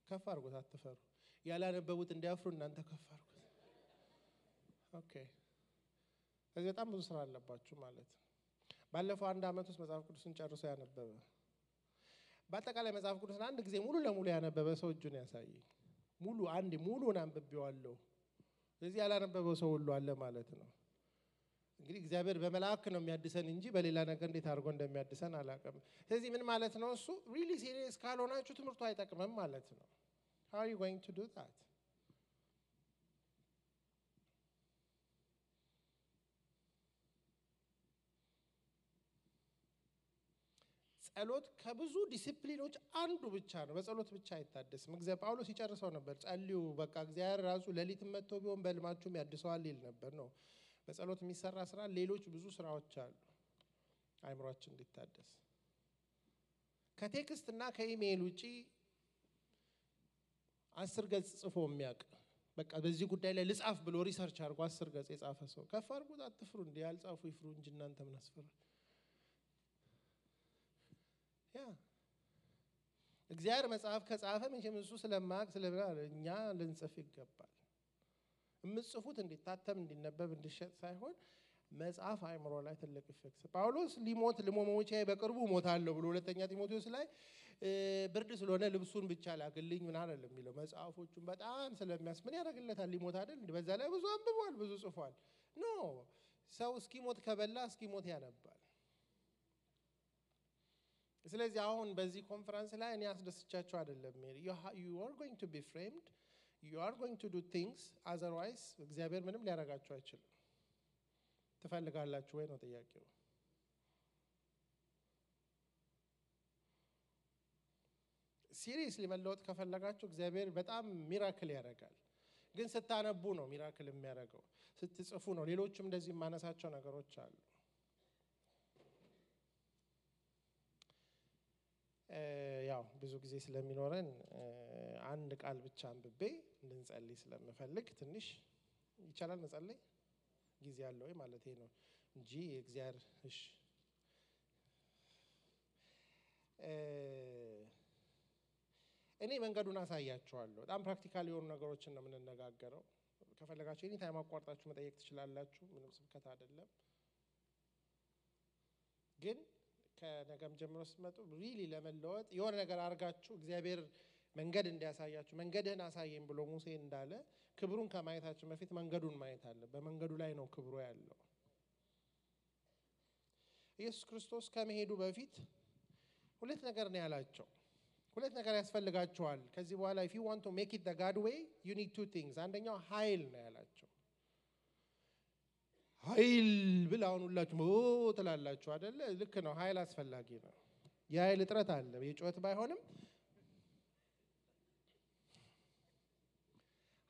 ከፍ አድርጉት፣ አትፈሩ። ያላነበቡት እንዲያፍሩ እናንተ ከፍ አድርጉት። ኦኬ፣ ስለዚህ በጣም ብዙ ስራ አለባችሁ ማለት ነው። ባለፈው 1 አመት ውስጥ መጽሐፍ ቅዱስን ጨርሶ ያነበበ፣ በአጠቃላይ መጽሐፍ ቅዱስን አንድ ጊዜ ሙሉ ለሙሉ ያነበበ ሰው እጁን ያሳይ። ሙሉ አንድ ሙሉን አንብቤዋለሁ ስለዚህ ያላነበበው ሰው ሁሉ አለ ማለት ነው እንግዲህ እግዚአብሔር በመላእክ ነው የሚያድሰን እንጂ በሌላ ነገር እንዴት አድርጎ እንደሚያድሰን አላውቅም ስለዚህ ምን ማለት ነው እሱ really serious ካልሆናችሁ ትምህርቱ አይጠቅምም ማለት ነው how are you going to do that ጸሎት ከብዙ ዲሲፕሊኖች አንዱ ብቻ ነው በጸሎት ብቻ አይታደስም እግዚአብሔር ጳውሎስ ይጨርሰው ነበር ጸልዩ በቃ እግዚአብሔር ራሱ ለሊት መጥቶ ቢሆን በልማችሁም ያድሰዋል ይል ነበር ነው በጸሎት የሚሰራ ስራ ሌሎች ብዙ ስራዎች አሉ አይምሮአችን እንዲታደስ ከቴክስት እና ከኢሜል ውጪ 10 ገጽ ጽፎ የሚያውቅ በቃ በዚህ ጉዳይ ላይ ልጻፍ ብሎ ሪሰርች አድርጎ 10 ገጽ የጻፈ ሰው ከፈርጉት አትፍሩ እንዴ ያልጻፉ ይፍሩ እንጂ እናንተ ምን አስፈራ ያ እግዚአብሔር መጽሐፍ ከጻፈ መቼም እሱ ስለማያውቅ ስለኛ ልንጽፍ ይገባል የምጽፉት እንዲታተም እንዲነበብ እንዲሸጥ ሳይሆን መጽሐፍ አይምሮ ላይ ትልቅ ኢፌክት ጳውሎስ ሊሞት ለሞሞቼ በቅርቡ ሞታለሁ ብሎ ሁለተኛ ጢሞቴዎስ ላይ ብርድ ስለሆነ ልብሱን ብቻ ላግልኝ ምን አይደለም የሚለው መጽሐፎቹን በጣም ስለሚያስምን ያደርግለታል ሊሞት አይደል በዛ ላይ ብዙ አንብቧል ብዙ ጽፏል ኖ ሰው እስኪሞት ከበላ እስኪሞት ያነባል ስለዚህ አሁን በዚህ ኮንፈረንስ ላይ እኔ አስደስቻቸው አይደለም you are going to be framed you are going to do things otherwise እግዚአብሔር ምንም ሊያረጋችሁ አይችልም ትፈልጋላችሁ ወይ ነው ጥያቄው ሲሪየስሊ መለወጥ ከፈለጋችሁ እግዚአብሔር በጣም ሚራክል ያደርጋል ግን ስታነቡ ነው ሚራክል የሚያደርገው ስትጽፉ ነው ሌሎችም እንደዚህ ማነሳቸው ነገሮች አሉ ያው ብዙ ጊዜ ስለሚኖረን አንድ ቃል ብቻ አንብቤ እንድንጸልይ ስለምፈልግ ትንሽ ይቻላል መጸለይ ጊዜ ያለው ማለት ነው እንጂ እግዚአብሔር እሺ እኔ መንገዱን አሳያችኋለሁ በጣም ፕራክቲካል የሆኑ ነገሮችን ነው የምንነጋገረው ከፈለጋችሁ እኔ ታይም አቋርጣችሁ መጠየቅ ትችላላችሁ ምንም ስብከት አይደለም ግን ከነገም ጀምሮ ስትመጡ ሪሊ ለመለወጥ የሆነ ነገር አርጋችሁ እግዚአብሔር መንገድ እንዲያሳያችሁ መንገድህን አሳየኝ ብሎ ሙሴ እንዳለ ክብሩን ከማየታችሁ በፊት መንገዱን ማየት አለ በመንገዱ ላይ ነው ክብሩ ያለው ኢየሱስ ክርስቶስ ከመሄዱ በፊት ሁለት ነገር ነው ያላቸው ሁለት ነገር ያስፈልጋቸዋል ከዚህ በኋላ if you want to make it the God way you need two things አንደኛው ኃይል ነው ያላቸው ኃይል ብላውን ሁላችሁ ትላላችሁ አይደለ ልክ ነው ኃይል አስፈላጊ ነው የኃይል እጥረት አለ የጮት ባይሆንም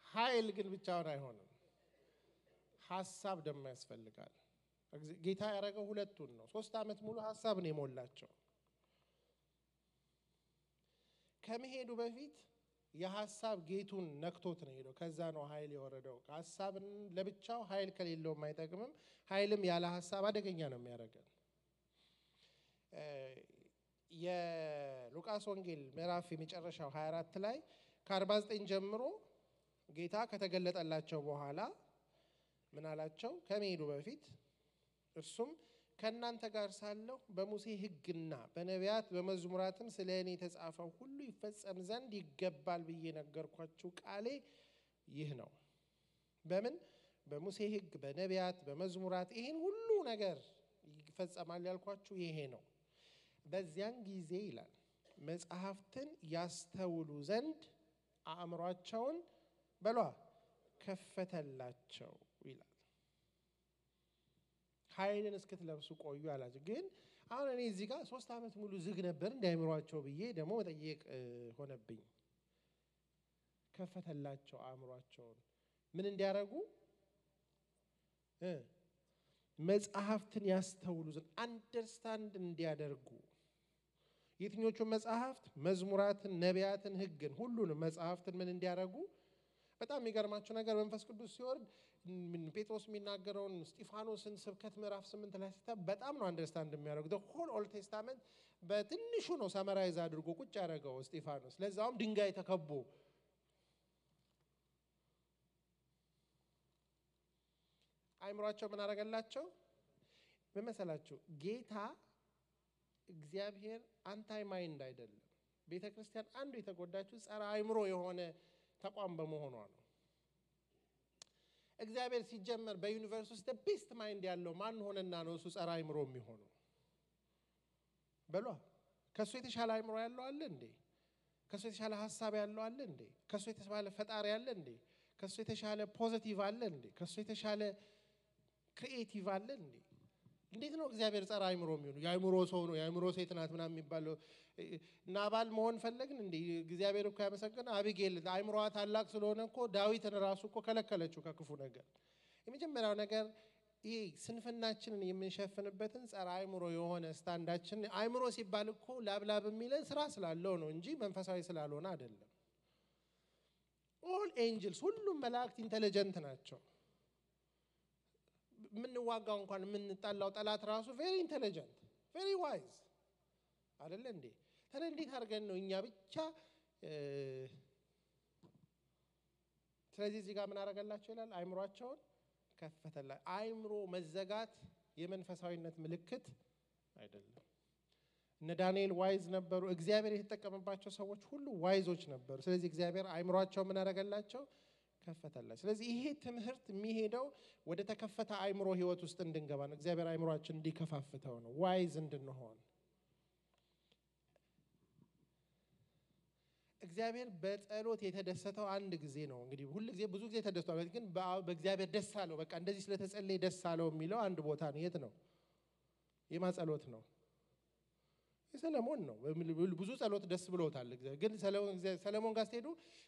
ኃይል ግን ብቻውን አይሆንም ሐሳብ ደግሞ ያስፈልጋል ጌታ ያረጋው ሁለቱን ነው 3 አመት ሙሉ ሐሳብ ነው የሞላቸው ከመሄዱ በፊት የሐሳብ ጌቱን ነክቶት ነው ሄዶ ከዛ ነው ኃይል የወረደው ሐሳብን ለብቻው ኃይል ከሌለው ማይጠቅምም ኃይልም ያለ ሐሳብ አደገኛ ነው የሚያረጋው የሉቃስ ወንጌል ምዕራፍ የመጨረሻው 24 ላይ ከ49 ጀምሮ ጌታ ከተገለጠላቸው በኋላ ምን አላቸው ከመሄዱ በፊት እርሱም ከናንተ ጋር ሳለሁ በሙሴ ሕግና በነቢያት በመዝሙራትም ስለኔ የተጻፈው ሁሉ ይፈጸም ዘንድ ይገባል ብዬ ነገርኳችሁ ቃሌ ይህ ነው በምን በሙሴ ሕግ በነቢያት በመዝሙራት ይሄን ሁሉ ነገር ይፈጸማል ያልኳችሁ ይሄ ነው በዚያን ጊዜ ይላል መጽሐፍትን ያስተውሉ ዘንድ አእምሮአቸውን በሏ ከፈተላቸው ይላል ኃይልን እስክትለብሱ ቆዩ አላችሁ ግን አሁን እኔ እዚህ ጋር 3 አመት ሙሉ ዝግ ነበር እንዳይምሯቸው ብዬ ደግሞ መጠየቅ ሆነብኝ ከፈተላቸው አእምሮአቸውን ምን እንዲያረጉ መጽሐፍትን ያስተውሉ ዘንድ አንደርስታንድ እንዲያደርጉ የትኞቹ መጽሐፍት መዝሙራትን ነቢያትን ሕግን ሁሉንም መጽሐፍትን ምን እንዲያረጉ በጣም የሚገርማችሁ ነገር መንፈስ ቅዱስ ሲወርድ ጴጥሮስ የሚናገረውን እስጢፋኖስን ስብከት ምዕራፍ 8 ላይ ሲታ በጣም ነው አንደርስታንድ የሚያደርጉ the whole old testament በትንሹ ነው ሰመራይዝ አድርጎ ቁጭ ያደረገው እስጢፋኖስ ለዛውም ድንጋይ ተከቦ አይምሮአቸው ምን አረጋላቸው በመሰላችሁ ጌታ እግዚአብሔር አንታይ ማይንድ አይደለም ቤተክርስቲያን አንዱ የተጎዳችው ጸረ አይምሮ የሆነ ተቋም በመሆኗ ነው። እግዚአብሔር ሲጀመር በዩኒቨርስ ውስጥ ቤስት ማይንድ ያለው ማን ሆነና ነው እሱ ጸረ አእምሮ የሚሆነው? በሏ ከሱ የተሻለ አእምሮ ያለው አለ እንዴ? ከሱ የተሻለ ሐሳብ ያለው አለ እንዴ? ከሱ የተሻለ ፈጣሪ አለ እንዴ? ከሱ የተሻለ ፖዚቲቭ አለ እንዴ? ከሱ የተሻለ ክሪኤቲቭ አለ እንዴ? እንዴት ነው እግዚአብሔር ጸረ አእምሮ የሚሆነው? የአእምሮ ሰው ነው የአእምሮ ሴት ናት ምናምን የሚባለው ናባል መሆን ፈለግን እንዴ? እግዚአብሔር እኮ ያመሰገነ አቢጌል አእምሮዋ ታላቅ ስለሆነ እኮ ዳዊትን ራሱ እኮ ከለከለችው ከክፉ ነገር። የመጀመሪያው ነገር ይሄ ስንፍናችንን የምንሸፍንበትን ጸረ አእምሮ የሆነ ስታንዳችን አእምሮ ሲባል እኮ ላብላብ የሚለን ስራ ስላለው ነው እንጂ መንፈሳዊ ስላልሆነ አይደለም። ኦል ኤንጅልስ ሁሉም መላእክት ኢንተለጀንት ናቸው። ምንዋጋው እንኳን ምንጣላው ጠላት ራሱ ቬሪ ኢንተለጀንት ቬሪ ዋይዝ አይደለ እንዴ? ታዲያ እንዴት አድርገን ነው እኛ ብቻ ስለዚህ እዚህ ጋር ምን አደረገላቸው ይላል? አእምሮአቸውን ከፈተላ። አእምሮ መዘጋት የመንፈሳዊነት ምልክት አይደለም። እነ ዳንኤል ዋይዝ ነበሩ። እግዚአብሔር የተጠቀመባቸው ሰዎች ሁሉ ዋይዞች ነበሩ። ስለዚህ እግዚአብሔር አእምሮአቸው ምን አደረገላቸው? ከፈተላቸው። ስለዚህ ይሄ ትምህርት የሚሄደው ወደ ተከፈተ አእምሮ ህይወት ውስጥ እንድንገባ ነው። እግዚአብሔር አእምሮአችን እንዲከፋፍተው ነው፣ ዋይዝ እንድንሆን። እግዚአብሔር በጸሎት የተደሰተው አንድ ጊዜ ነው። እንግዲህ ሁሉ ጊዜ ብዙ ጊዜ ተደስቷል፣ ግን በእግዚአብሔር ደስ አለው በቃ እንደዚህ ስለተጸለየ ደስ አለው የሚለው አንድ ቦታ ነው። የት ነው? የማጸሎት ነው። የሰለሞን ነው። ብዙ ጸሎት ደስ ብሎታል እግዚአብሔር። ግን ሰለሞን ጋር ስትሄዱ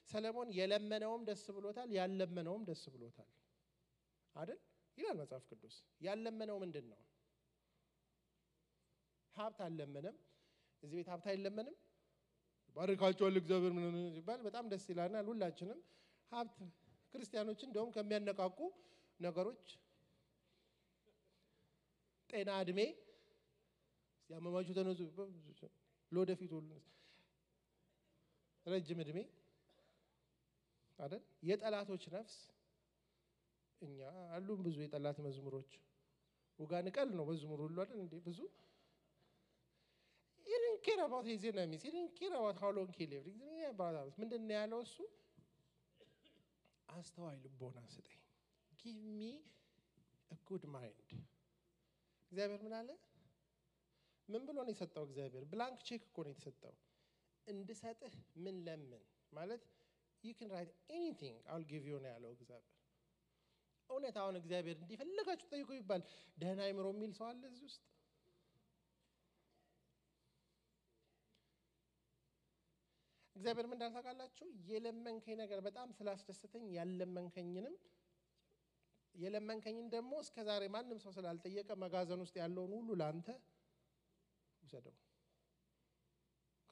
ሰለሞን የለመነውም ደስ ብሎታል፣ ያለመነውም ደስ ብሎታል አይደል ይላል መጽሐፍ ቅዱስ። ያለመነው ምንድነው? ሀብት አልለመነም። እዚህ ቤት ሀብት አይለመንም። ባርካቸዋል እግዚአብሔር ምን ይባል በጣም ደስ ይላልናል ሁላችንም። ሀብት ክርስቲያኖች እንደውም ከሚያነቃቁ ነገሮች ጤና፣ እድሜ ያመማቹ ተነሱ ለወደፊት ሁሉ ረጅም እድሜ አይደል? የጠላቶች ነፍስ እኛ አሉን ብዙ የጠላት መዝሙሮች ወጋን ቀል ነው መዝሙር ሁሉ አይደል እንዴ? ብዙ he didn't care about his enemies. He didn't care about how long he lived. ምንድነው ያለው እሱ? አስተዋይ ልቦና ስጠኝ። give me a good mind. እግዚአብሔር ምን አለ? ምን ብሎ ነው የሰጠው እግዚአብሔር? ብላንክ ቼክ እኮ ነው የተሰጠው። እንድሰጥህ ምን ለምን ማለት you can write anything I'll give you ነው ያለው እግዚአብሔር። እውነት አሁን እግዚአብሔር እንዲፈልጋችሁ ጠይቁ ይባል ደህና አእምሮ የሚል ሰው አለ እዚህ ውስጥ? እግዚአብሔር ምን እንዳልታውቃላችሁ የለመንከኝ ነገር በጣም ስላስደሰተኝ የለመንከኝን ደግሞ እስከዛሬ ማንም ሰው ስላልጠየቀ መጋዘን ውስጥ ያለውን ሁሉ ላንተ ውሰደው።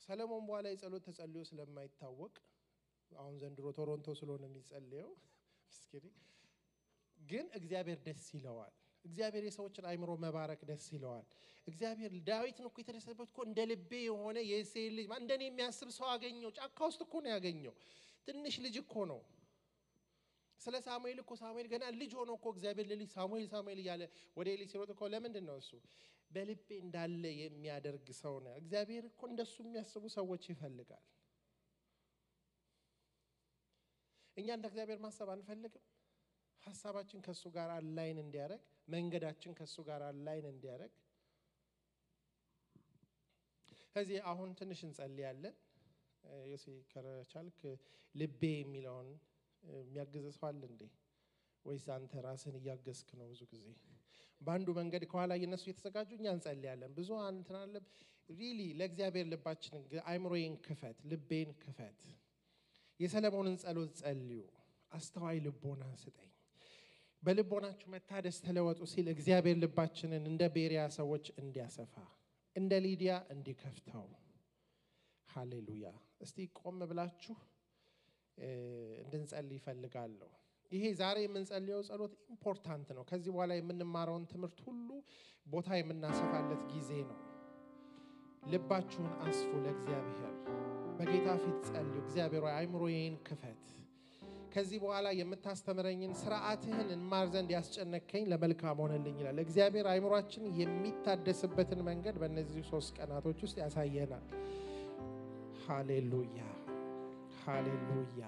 ሰለሞን በኋላ የጸሎት ተጸልዮ ስለማይታወቅ አሁን ዘንድሮ ቶሮንቶ ስለሆነ የሚጸልየው ምስኪን ግን እግዚአብሔር ደስ ይለዋል። እግዚአብሔር የሰዎችን አእምሮ መባረክ ደስ ይለዋል። እግዚአብሔር ዳዊትን እኮ የተደሰተበት እኮ እንደ ልቤ የሆነ የእሴይ ልጅ እንደኔ የሚያስብ ሰው አገኘው። ጫካ ውስጥ እኮ ነው ያገኘው። ትንሽ ልጅ እኮ ነው። ስለ ሳሙኤል እኮ ሳሙኤል ገና ልጅ ሆኖ እኮ እግዚአብሔር ለልጅ ሳሙኤል እያለ ወደ ኤሊ ሲሮጥ እኮ ለምንድን ነው እሱ በልቤ እንዳለ የሚያደርግ ሰው ነው። እግዚአብሔር እኮ እንደሱ የሚያስቡ ሰዎች ይፈልጋል። እኛ እንደ እግዚአብሔር ማሰብ አንፈልግም። ሐሳባችን ከሱ ጋር አላይን እንዲያረግ፣ መንገዳችን ከሱ ጋር አላይን እንዲያረግ። ከዚህ አሁን ትንሽ እንጸልያለን። ዮሴ ከቻልክ ልቤ የሚለውን የሚያግዝ ሰው አለ እንዴ? ወይስ አንተ ራስን እያገዝክ ነው? ብዙ ጊዜ በአንዱ መንገድ ከኋላ እነሱ እየተዘጋጁ እኛ እንጸልያለን። ብዙ አንተና ሪሊ ለእግዚአብሔር ልባችንን አእምሮዬን ክፈት፣ ልቤን ክፈት። የሰለሞንን ጸሎት ጸልዩ። አስተዋይ ልቦና ስጠኝ፣ በልቦናችሁ መታደስ ተለወጡ ሲል እግዚአብሔር ልባችንን እንደ ቤሪያ ሰዎች እንዲያሰፋ እንደ ሊዲያ እንዲከፍተው። ሃሌሉያ። እስቲ ቆም ብላችሁ እንድንጸልይ ይፈልጋለሁ። ይሄ ዛሬ የምንጸልየው ጸሎት ኢምፖርታንት ነው። ከዚህ በኋላ የምንማረውን ትምህርት ሁሉ ቦታ የምናሰፋለት ጊዜ ነው። ልባችሁን አስፉ ለእግዚአብሔር። በጌታ ፊት ጸልዩ። እግዚአብሔር ሆይ አእምሮዬን ክፈት። ከዚህ በኋላ የምታስተምረኝን ሥርዓትህን እንማር ዘንድ ያስጨነቀኝ ለመልካም ሆነልኝ ይላል እግዚአብሔር። አእምሮአችን የሚታደስበትን መንገድ በእነዚህ 3 ቀናቶች ውስጥ ያሳየናል። ሃሌሉያ ሃሌሉያ።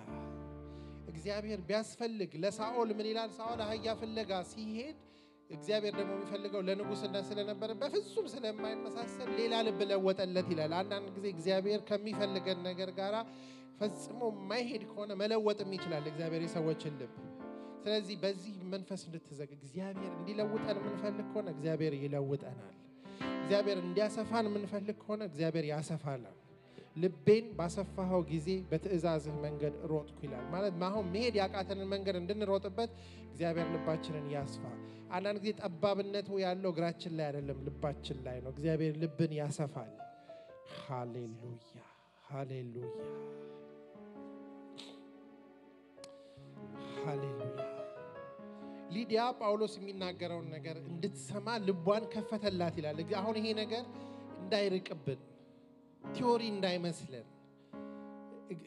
እግዚአብሔር ቢያስፈልግ ለሳኦል ምን ይላል ሳኦል አህያ ፍለጋ ሲሄድ እግዚአብሔር ደግሞ የሚፈልገው ለንጉስነት ስለነበረ በፍጹም ስለማይመሳሰል ሌላ ልብ ለወጠለት ይላል አንዳንድ ጊዜ እግዚአብሔር ከሚፈልገን ነገር ጋራ ፈጽሞ ማይሄድ ከሆነ መለወጥም ይችላል እግዚአብሔር የሰዎችን ልብ ስለዚህ በዚህ መንፈስ እንድትዘግ እግዚአብሔር እንዲለውጠን ምንፈልግ ከሆነ እግዚአብሔር ይለውጠናል እግዚአብሔር እንዲያሰፋን ምንፈልግ ከሆነ እግዚአብሔር ያሰፋናል ልቤን ባሰፋው ጊዜ በትእዛዝህ መንገድ ሮጥኩ ይላል ማለት ማሁን መሄድ ያቃተንን መንገድ እንድንሮጥበት እግዚአብሔር ልባችንን ያስፋ አንዳንድ ጊዜ ጠባብነቱ ያለው እግራችን ላይ አይደለም ልባችን ላይ ነው እግዚአብሔር ልብን ያሰፋል ሃሌሉያ ሃሌሉያ ሃሌሉያ ሊዲያ ጳውሎስ የሚናገረውን ነገር እንድትሰማ ልቧን ከፈተላት ይላል አሁን ይሄ ነገር እንዳይርቅብን ቲዮሪ እንዳይመስለን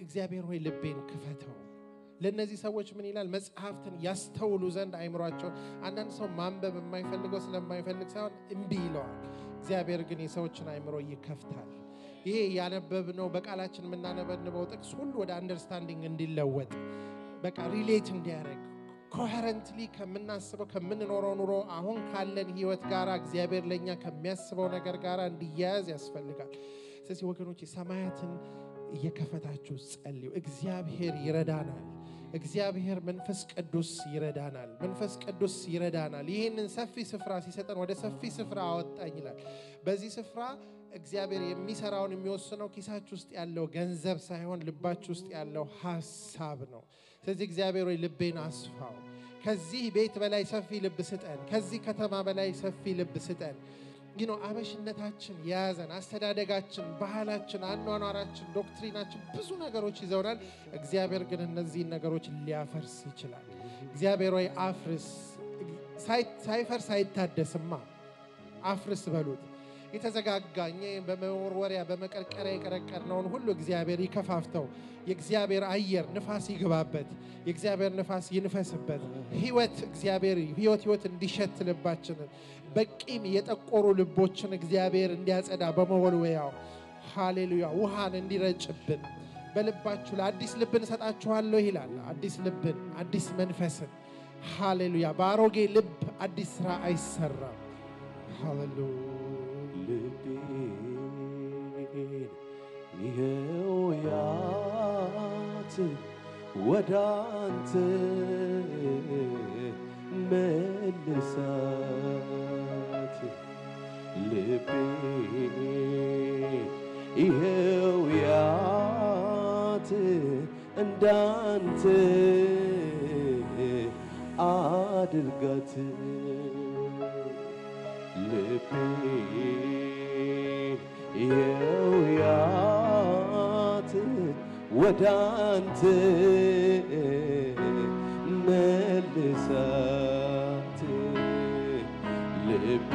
እግዚአብሔር ሆይ ልቤን ክፈተው ለነዚህ ሰዎች ምን ይላል መጽሐፍትን ያስተውሉ ዘንድ አይምሯቸው አንዳንድ ሰው ማንበብ የማይፈልገው ስለማይፈልግ ሳይሆን እምቢ ይለዋል እግዚአብሔር ግን የሰዎችን አይምሮ ይከፍታል ይሄ ያነበብነው በቃላችን የምናነበንበው ጥቅስ ሁሉ ወደ አንደርስታንዲንግ እንዲለወጥ በቃ ሪሌት እንዲያደርግ ኮሄረንትሊ ከምናስበው ከምንኖረው ኑሮ አሁን ካለን ህይወት ጋራ እግዚአብሔር ለኛ ከሚያስበው ነገር ጋራ እንዲያያዝ ያስፈልጋል ስለዚህ ወገኖች ሰማያትን እየከፈታችሁ ጸልዩ እግዚአብሔር ይረዳናል እግዚአብሔር መንፈስ ቅዱስ ይረዳናል መንፈስ ቅዱስ ይረዳናል ይሄንን ሰፊ ስፍራ ሲሰጠን ወደ ሰፊ ስፍራ አወጣኝ ይላል በዚህ ስፍራ እግዚአብሔር የሚሰራውን የሚወስነው ኪሳችሁ ውስጥ ያለው ገንዘብ ሳይሆን ልባችሁ ውስጥ ያለው ሐሳብ ነው ስለዚህ እግዚአብሔር ወይ ልቤን አስፋው ከዚህ ቤት በላይ ሰፊ ልብ ስጠን ከዚህ ከተማ በላይ ሰፊ ልብ ስጠን አበሽነታችን ያዘን አስተዳደጋችን ባህላችን አኗኗራችን ዶክትሪናችን ብዙ ነገሮች ይዘውናል እግዚአብሔር ግን እነዚህ ነገሮች ሊያፈርስ ይችላል እግዚአብሔር ወይ አፍርስ ሳይፈርስ አይታደስማ አፍርስ በሉት የተዘጋጋኝ በመወርወሪያ በመቀርቀሪያ የቀረቀርነውን ሁሉ እግዚአብሔር ይከፋፍተው የእግዚአብሔር አየር ንፋስ ይግባበት የእግዚአብሔር ንፋስ ይንፈስበት ህይወት እግዚአብሔር ህይወት እንዲሸት ልባችንን በቂም የጠቆሩ ልቦችን እግዚአብሔር እንዲያጸዳ በመወልወያው ሃሌሉያ ውሃን እንዲረጭብን በልባችሁ ለአዲስ ልብን ሰጣችኋለሁ ይላል አዲስ ልብን አዲስ መንፈስን ሃሌሉያ ባሮጌ ልብ አዲስ ስራ አይሰራም ሃሌሉያ ይሄውያት ወዳንተ መልሳት ልቤ ይሄውያት እንዳንተ አድርጋት ልቤ ይሄውያት ወዳንተ መልሳት ልቤ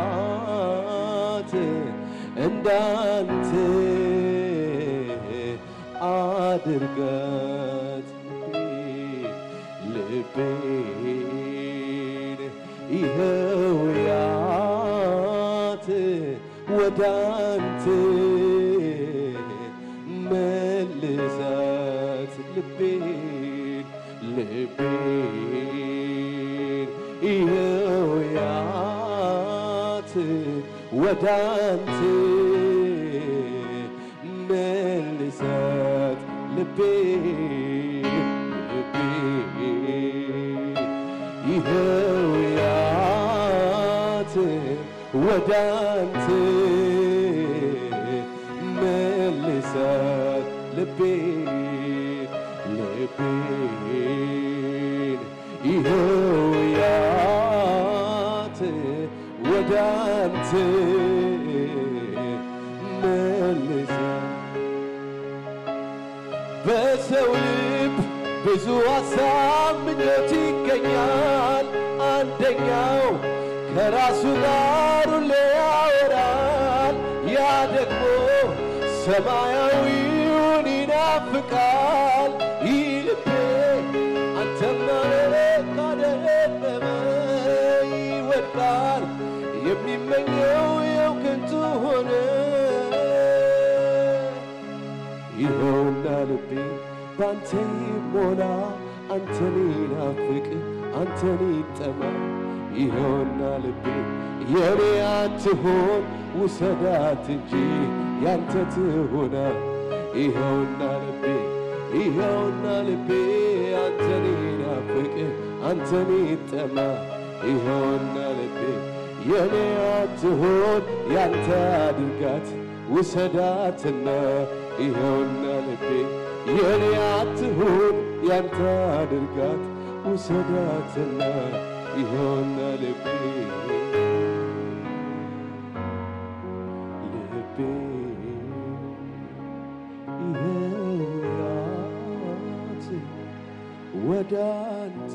ይሄውያት እንዳንተ አድርጋት ልቤ ይሄውያት ወዳንተ መልሳት ልቤ ይሄውያት ወዳንተ መልሳት ልቤ ይሄውያት ወዳንተ መልሳት ልቤ ይሄውያት ወዳንተ መልሳት በሰው ልብ ብዙ ሐሳብ ምኞት ይገኛል አንደኛው ከራሱ ጋር ሁሌ ያወራል ያ ደግሞ ሰማያዊውን ይናፍቃል ልቤ አንተማ ካደረበ ይወድቃል የሚመኘው የው ከንቱ ሆነ ይኸውና ልቤ ባንተ ይሞላ አንተን ይናፍቅ አንተን ይጠማ ይኸውና ልቤ የኔ አትሆን ውሰዳት እንጂ ያንተ ትሆና ይኸውና ልቤ አንተን ይናፍቅ አንተን ይጠማ ይኸውና ልቤ የኔ አትሆን ያንተ አድርጋት ውሰዳትና ይኸውና ልቤ የኔ አትሆን ያንተ አድርጋት ውሰዳትና ይኸውና ልቤ ይኸውያት ወደ አንተ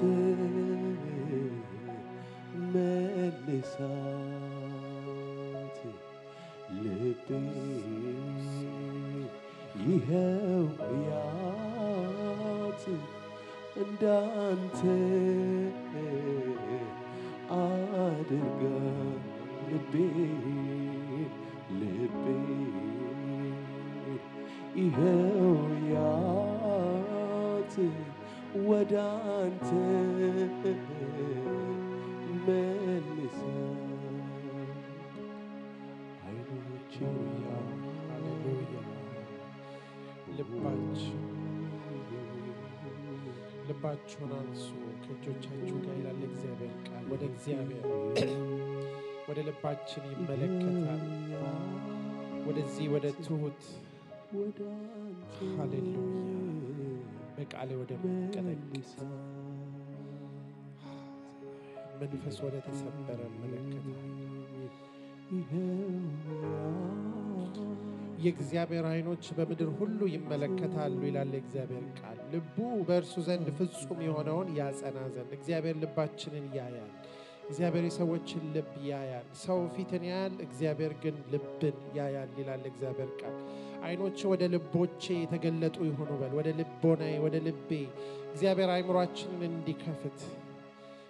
መልሳት ልቤ ይኸውያት እንዳንተ አድርጋ ልቤ ይኸውያት ወደ አንተ መልሳት አይኖቼን ሃሌሉያ ልባችሁን አንሱ ከእጆቻችሁ ጋር ይላል እግዚአብሔር ቃል ወደ እግዚአብሔር ወደ ልባችን ይመለከታል ወደዚህ ወደ ትሁት ሃሌሉያ በቃሌ ወደ መቀደስ መንፈስ ወደ ተሰበረ መለከታል የእግዚአብሔር አይኖች በምድር ሁሉ ይመለከታሉ ይላል እግዚአብሔር ቃል ልቡ በእርሱ ዘንድ ፍጹም የሆነውን ያጸና ዘንድ እግዚአብሔር ልባችንን ያያል እግዚአብሔር የሰዎችን ልብ ያያል ሰው ፊትን ያያል እግዚአብሔር ግን ልብን ያያል ይላል እግዚአብሔር ቃል አይኖች ወደ ልቦቼ የተገለጡ ይሆኑ በል ወደ ልቦናዬ ወደ ልቤ እግዚአብሔር አይምሮአችንን እንዲከፍት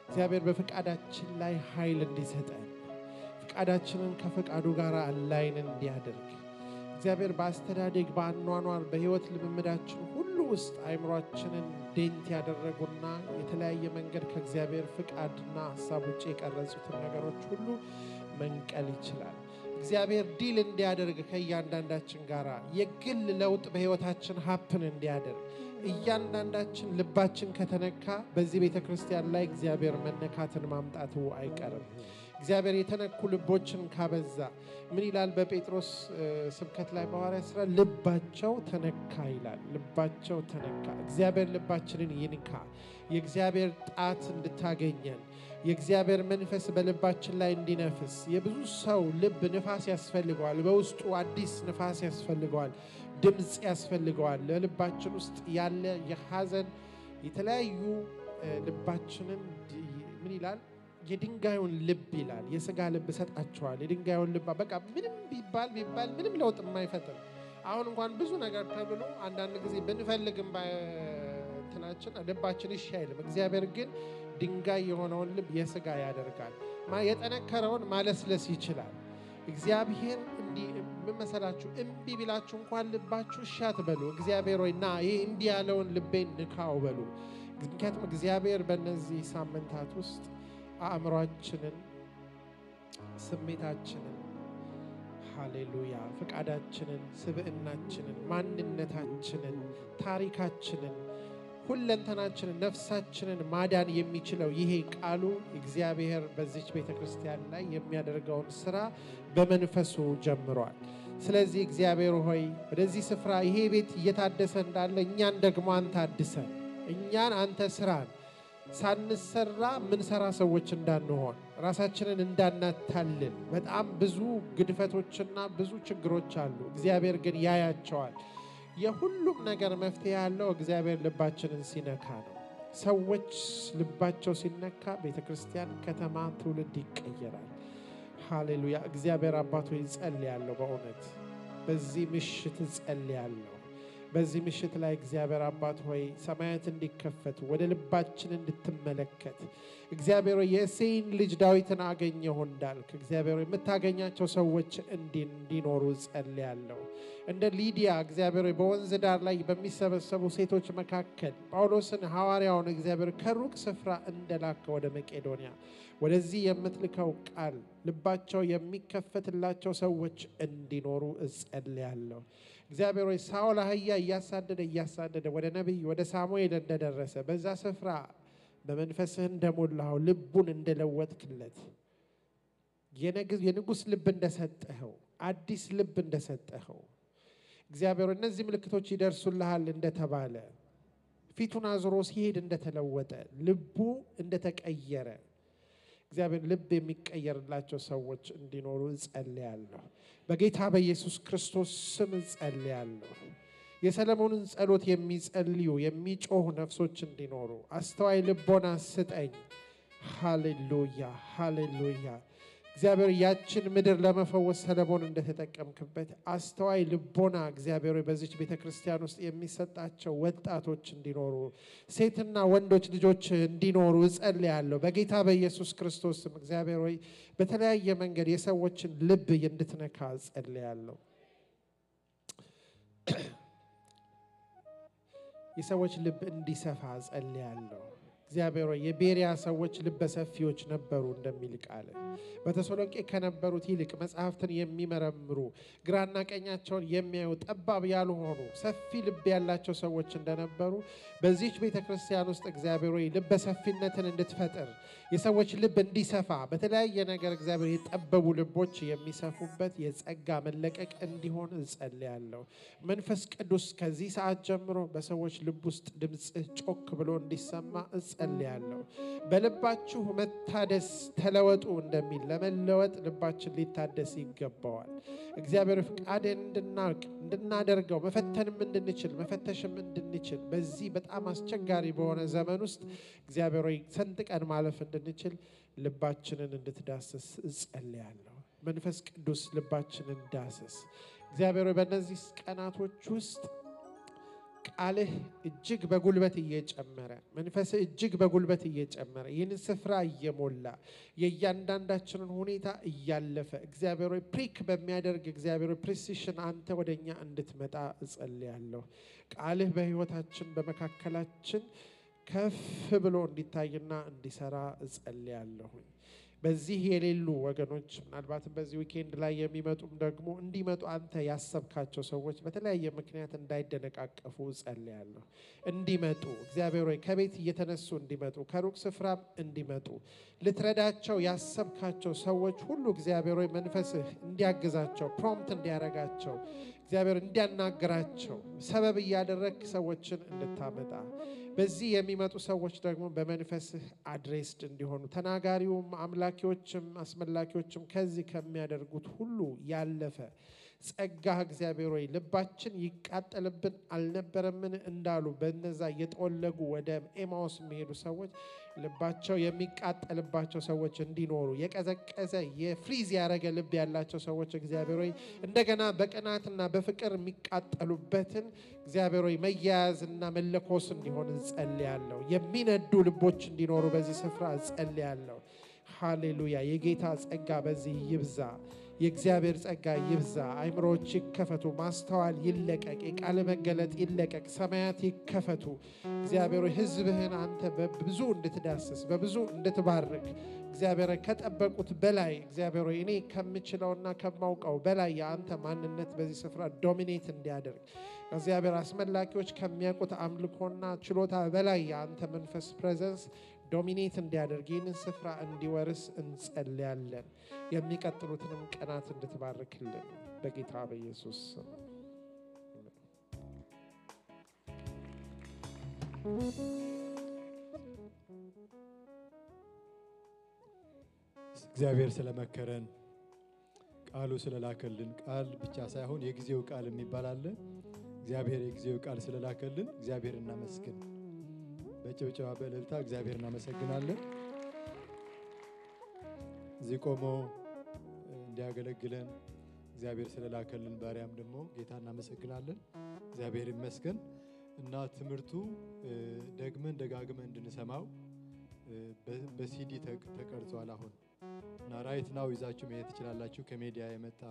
እግዚአብሔር በፍቃዳችን ላይ ኃይል እንዲሰጠን ፍቃዳችንን ከፍቃዱ ጋር አላይን እንዲያደርግ እግዚአብሔር በአስተዳደግ በአኗኗር በህይወት ልምምዳችን ሁሉ ውስጥ አይምሮአችንን ዴንት ያደረጉና የተለያየ መንገድ ከእግዚአብሔር ፍቃድና ሐሳብ ውጪ የቀረጹትን ነገሮች ሁሉ መንቀል ይችላል እግዚአብሔር ዲል እንዲያደርግ ከእያንዳንዳችን ጋራ የግል ለውጥ በህይወታችን ሀፕን እንዲያደርግ እያንዳንዳችን ልባችን ከተነካ በዚህ ቤተክርስቲያን ላይ እግዚአብሔር መነካትን ማምጣቱ አይቀርም እግዚአብሔር የተነኩ ልቦችን ካበዛ ምን ይላል በጴጥሮስ ስብከት ላይ በሐዋርያት ሥራ ልባቸው ተነካ ይላል ልባቸው ተነካ እግዚአብሔር ልባችንን ይንካ የእግዚአብሔር ጣት እንድታገኘን የእግዚአብሔር መንፈስ በልባችን ላይ እንዲነፍስ የብዙ ሰው ልብ ንፋስ ያስፈልገዋል በውስጡ አዲስ ንፋስ ያስፈልገዋል ድምጽ ያስፈልገዋል ለልባችን ውስጥ ያለ የሐዘን የተለያዩ ልባችንን ምን ይላል የድንጋዩን ልብ ይላል የሥጋ ልብ ሰጣቸዋል የድንጋዩን ልብ በቃ ምንም ቢባል ምንም ለውጥ የማይፈጥር አሁን እንኳን ብዙ ነገር ተብሎ አንዳንድ ጊዜ ብንፈልግም ባትናችን ልባችን ይሻይልም እግዚአብሔር ግን ድንጋይ የሆነውን ልብ የሥጋ ያደርጋል የጠነከረውን ማለስለስ ይችላል እግዚአብሔር እንዲህ መሰላችሁ እምቢ ቢላችሁ እንኳን ልባችሁ ሻት በሉ እግዚአብሔር ሆይና ይሄ እንዲህ ያለውን ልቤን ንካው በሉ ምክንያቱም እግዚአብሔር በእነዚህ ሳምንታት ውስጥ አእምሮአችንን ስሜታችንን ሃሌሉያ ፍቃዳችንን ስብዕናችንን ማንነታችንን ታሪካችንን ሁለንተናችንን ነፍሳችንን ማዳን የሚችለው ይሄ ቃሉ እግዚአብሔር በዚች ቤተክርስቲያን ላይ የሚያደርገውን ሥራ በመንፈሱ ጀምሯል ስለዚህ እግዚአብሔር ሆይ ወደዚህ ስፍራ ይሄ ቤት እየታደሰ እንዳለ እኛን ደግሞ አንተ አድሰን እኛን አንተ ስራን ሳንሰራ ምን ሰራ ሰዎች እንዳንሆን ራሳችንን እንዳናታልል በጣም ብዙ ግድፈቶችና ብዙ ችግሮች አሉ እግዚአብሔር ግን ያያቸዋል የሁሉም ነገር መፍትሄ ያለው እግዚአብሔር ልባችንን ሲነካ ነው ሰዎች ልባቸው ሲነካ ቤተክርስቲያን ከተማ ትውልድ ይቀየራል ሃሌሉያ እግዚአብሔር አባቶ ይጸልያለሁ በእውነት በዚህ ምሽት ጸልያለሁ በዚህ ምሽት ላይ እግዚአብሔር አባት ሆይ ሰማያት እንዲከፈቱ ወደ ልባችን እንድትመለከት እግዚአብሔር ሆይ የእሴይን ልጅ ዳዊትን አገኘሁ እንዳልክ እግዚአብሔር ሆይ የምታገኛቸው ሰዎች እንዲኖሩ ጸልያለሁ። እንደ ሊዲያ እግዚአብሔር ሆይ በወንዝ ዳር ላይ በሚሰበሰቡ ሴቶች መካከል ጳውሎስን ሐዋርያውን እግዚአብሔር ከሩቅ ስፍራ እንደላከ ወደ መቄዶንያ ወደዚህ የምትልከው ቃል ልባቸው የሚከፈትላቸው ሰዎች እንዲኖሩ ጸልያለሁ። እግዚአብሔር ሆይ ሳኦል አህያ እያሳደደ ወደ ነቢይ ወደ ሳሙኤል እንደደረሰ በዛ ስፍራ በመንፈስህ እንደሞላው ልቡን እንደለወጥክለት የንጉስ ልብ እንደሰጠኸው አዲስ ልብ እንደሰጠኸው እግዚአብሔር እነዚህ ምልክቶች ይደርሱልሃል እንደተባለ ፊቱን አዝሮ ሲሄድ እንደተለወጠ ልቡ እንደተቀየረ እግዚአብሔር ልብ የሚቀየርላቸው ሰዎች እንዲኖሩ ጸልያለሁ። በጌታ በኢየሱስ ክርስቶስ ስም ጸልያለሁ። የሰለሞንን ጸሎት የሚጸልዩ የሚጮሁ ነፍሶች እንዲኖሩ አስተዋይ ልቦና ስጠኝ። ሃሌሉያ ሃሌሉያ። እግዚአብሔር ያችን ምድር ለመፈወስ ሰለሞን እንደተጠቀምክበት አስተዋይ ልቦና እግዚአብሔር በዚች ቤተክርስቲያን ውስጥ የሚሰጣቸው ወጣቶች እንዲኖሩ ሴትና ወንዶች ልጆች እንዲኖሩ ጸልያለሁ። በጌታ በኢየሱስ ክርስቶስ ስም እግዚአብሔር ሆይ በተለያየ መንገድ የሰዎችን ልብ እንድትነካ ጸልያለሁ። የሰዎች ልብ እንዲሰፋ ጸልያለሁ። እግዚአብሔር ሆይ የቤሪያ ሰዎች ልበ ሰፊዎች ነበሩ እንደሚል ቃል በተሰሎንቄ ከነበሩት ይልቅ መጽሐፍትን የሚመረምሩ ግራና ቀኛቸውን የሚያዩ ጠባብ ያልሆኑ ሰፊ ልብ ያላቸው ሰዎች እንደነበሩ በዚህች ቤተክርስቲያን ውስጥ እግዚአብሔር ሆይ ልበ ሰፊነትን እንድትፈጥር የሰዎች ልብ እንዲሰፋ በተለያየ ነገር እግዚአብሔር የጠበቡ ልቦች የሚሰፉበት የጸጋ መለቀቅ እንዲሆን ጸልያለሁ። መንፈስ ቅዱስ ከዚህ ሰዓት ጀምሮ በሰዎች ልብ ውስጥ ድምጽህ ጮክ ብሎ እንዲሰማ ጸልያለሁ። በልባችሁ መታደስ ተለወጡ እንደሚል ለመለወጥ ልባችን ሊታደስ ይገባዋል። እግዚአብሔር ፍቃድን እንድናደርገው መፈተንም እንድንችል መፈተሽም እንድንችል በዚህ በጣም አስቸጋሪ በሆነ ዘመን ውስጥ እግዚአብሔር ሆይ ሰንጥቀን ማለፍ እንድንችል ልባችንን እንድትዳስስ ጸልያለሁ። መንፈስ ቅዱስ ልባችንን ዳስስ። እግዚአብሔር ሆይ በእነዚህ ቀናቶች ውስጥ ቃልህ እጅግ በጉልበት እየጨመረ መንፈስህ እጅግ በጉልበት እየጨመረ ይህን ስፍራ እየሞላ የእያንዳንዳችንን ሁኔታ እያለፈ እግዚአብሔር ሆይ ፕሪክ በሚያደርግ እግዚአብሔር ፕሪሲሽን አንተ ወደኛ እንድትመጣ እጸልያለሁ። ቃልህ በህይወታችን በመካከላችን ከፍ ብሎ እንዲታይና እንዲሰራ እጸልያለሁ። በዚህ የሌሉ ወገኖች ምናልባትም በዚህ ዊኬንድ ላይ የሚመጡም ደግሞ እንዲመጡ አንተ ያሰብካቸው ሰዎች በተለያየ ምክንያት እንዳይደነቃቀፉ ጸልያለሁ። እንዲመጡ እግዚአብሔር ሆይ ከቤት እየተነሱ እንዲመጡ ከሩቅ ስፍራም እንዲመጡ ልትረዳቸው ያሰብካቸው ሰዎች ሁሉ እግዚአብሔር ሆይ መንፈስህ እንዲያግዛቸው ፕሮምፕት እንዲያረጋቸው እግዚአብሔር እንዲያናግራቸው ሰበብ እያደረግ ሰዎችን እንድታመጣ በዚህ የሚመጡ ሰዎች ደግሞ በመንፈስህ አድሬስድ እንዲሆኑ ተናጋሪውም አምላኪዎችም አስመላኪዎችም ከዚህ ከሚያደርጉት ሁሉ ያለፈ ጸጋህ እግዚአብሔር ሆይ ልባችን ይቃጠልብን አልነበረምን እንዳሉ በእነዛ እየጠወለጉ ወደ ኤማውስ የሚሄዱ ሰዎች ልባቸው የሚቃጠልባቸው ሰዎች እንዲኖሩ የቀዘቀዘ የፍሪዝ ያረገ ልብ ያላቸው ሰዎች እግዚአብሔር ሆይ እንደገና በቅናትና በፍቅር የሚቃጠሉበትን እግዚአብሔር ሆይ መያያዝና መለኮስ እንዲሆን ጸልያለሁ። የሚነዱ ልቦች እንዲኖሩ በዚህ ስፍራ ጸልያለሁ። ሃሌሉያ። የጌታ ጸጋ በዚህ ይብዛ። የእግዚአብሔር ጸጋ ይብዛ። አይምሮች ይከፈቱ፣ ማስተዋል ይለቀቅ፣ የቃል መገለጥ ይለቀቅ፣ ሰማያት ይከፈቱ። እግዚአብሔር ሕዝብህን አንተ በብዙ እንድትዳስስ በብዙ እንድትባርክ እግዚአብሔር ከጠበቁት በላይ እግዚአብሔር እኔ ከምችለውና ከማውቀው በላይ የአንተ ማንነት በዚህ ስፍራ ዶሚኔት እንዲያደርግ እግዚአብሔር አስመላኪዎች ከሚያውቁት አምልኮና ችሎታ በላይ የአንተ መንፈስ ፕሬዘንስ ዶሚኔት እንዲያደርግ ይህንን ስፍራ እንዲወርስ እንጸልያለን። የሚቀጥሉትንም ቀናት እንድትባርክልን በጌታ በኢየሱስ ስም። እግዚአብሔር ስለመከረን ቃሉ ስለላከልን ቃል ብቻ ሳይሆን የጊዜው ቃል የሚባል አለ። እግዚአብሔር የጊዜው ቃል ስለላከልን እግዚአብሔር እናመስግን። በጭብጨባ በእልልታ እግዚአብሔር እናመሰግናለን። እዚህ ቆሞ እንዲያገለግለን እግዚአብሔር ስለላከልን ባሪያም ደግሞ ጌታ እናመሰግናለን። እግዚአብሔር ይመስገን እና ትምህርቱ ደግመን ደጋግመን እንድንሰማው በሲዲ ተቀርጿል አሁን እና ራይት ናው ይዛችሁ መሄድ ትችላላችሁ ከሚዲያ የመጣ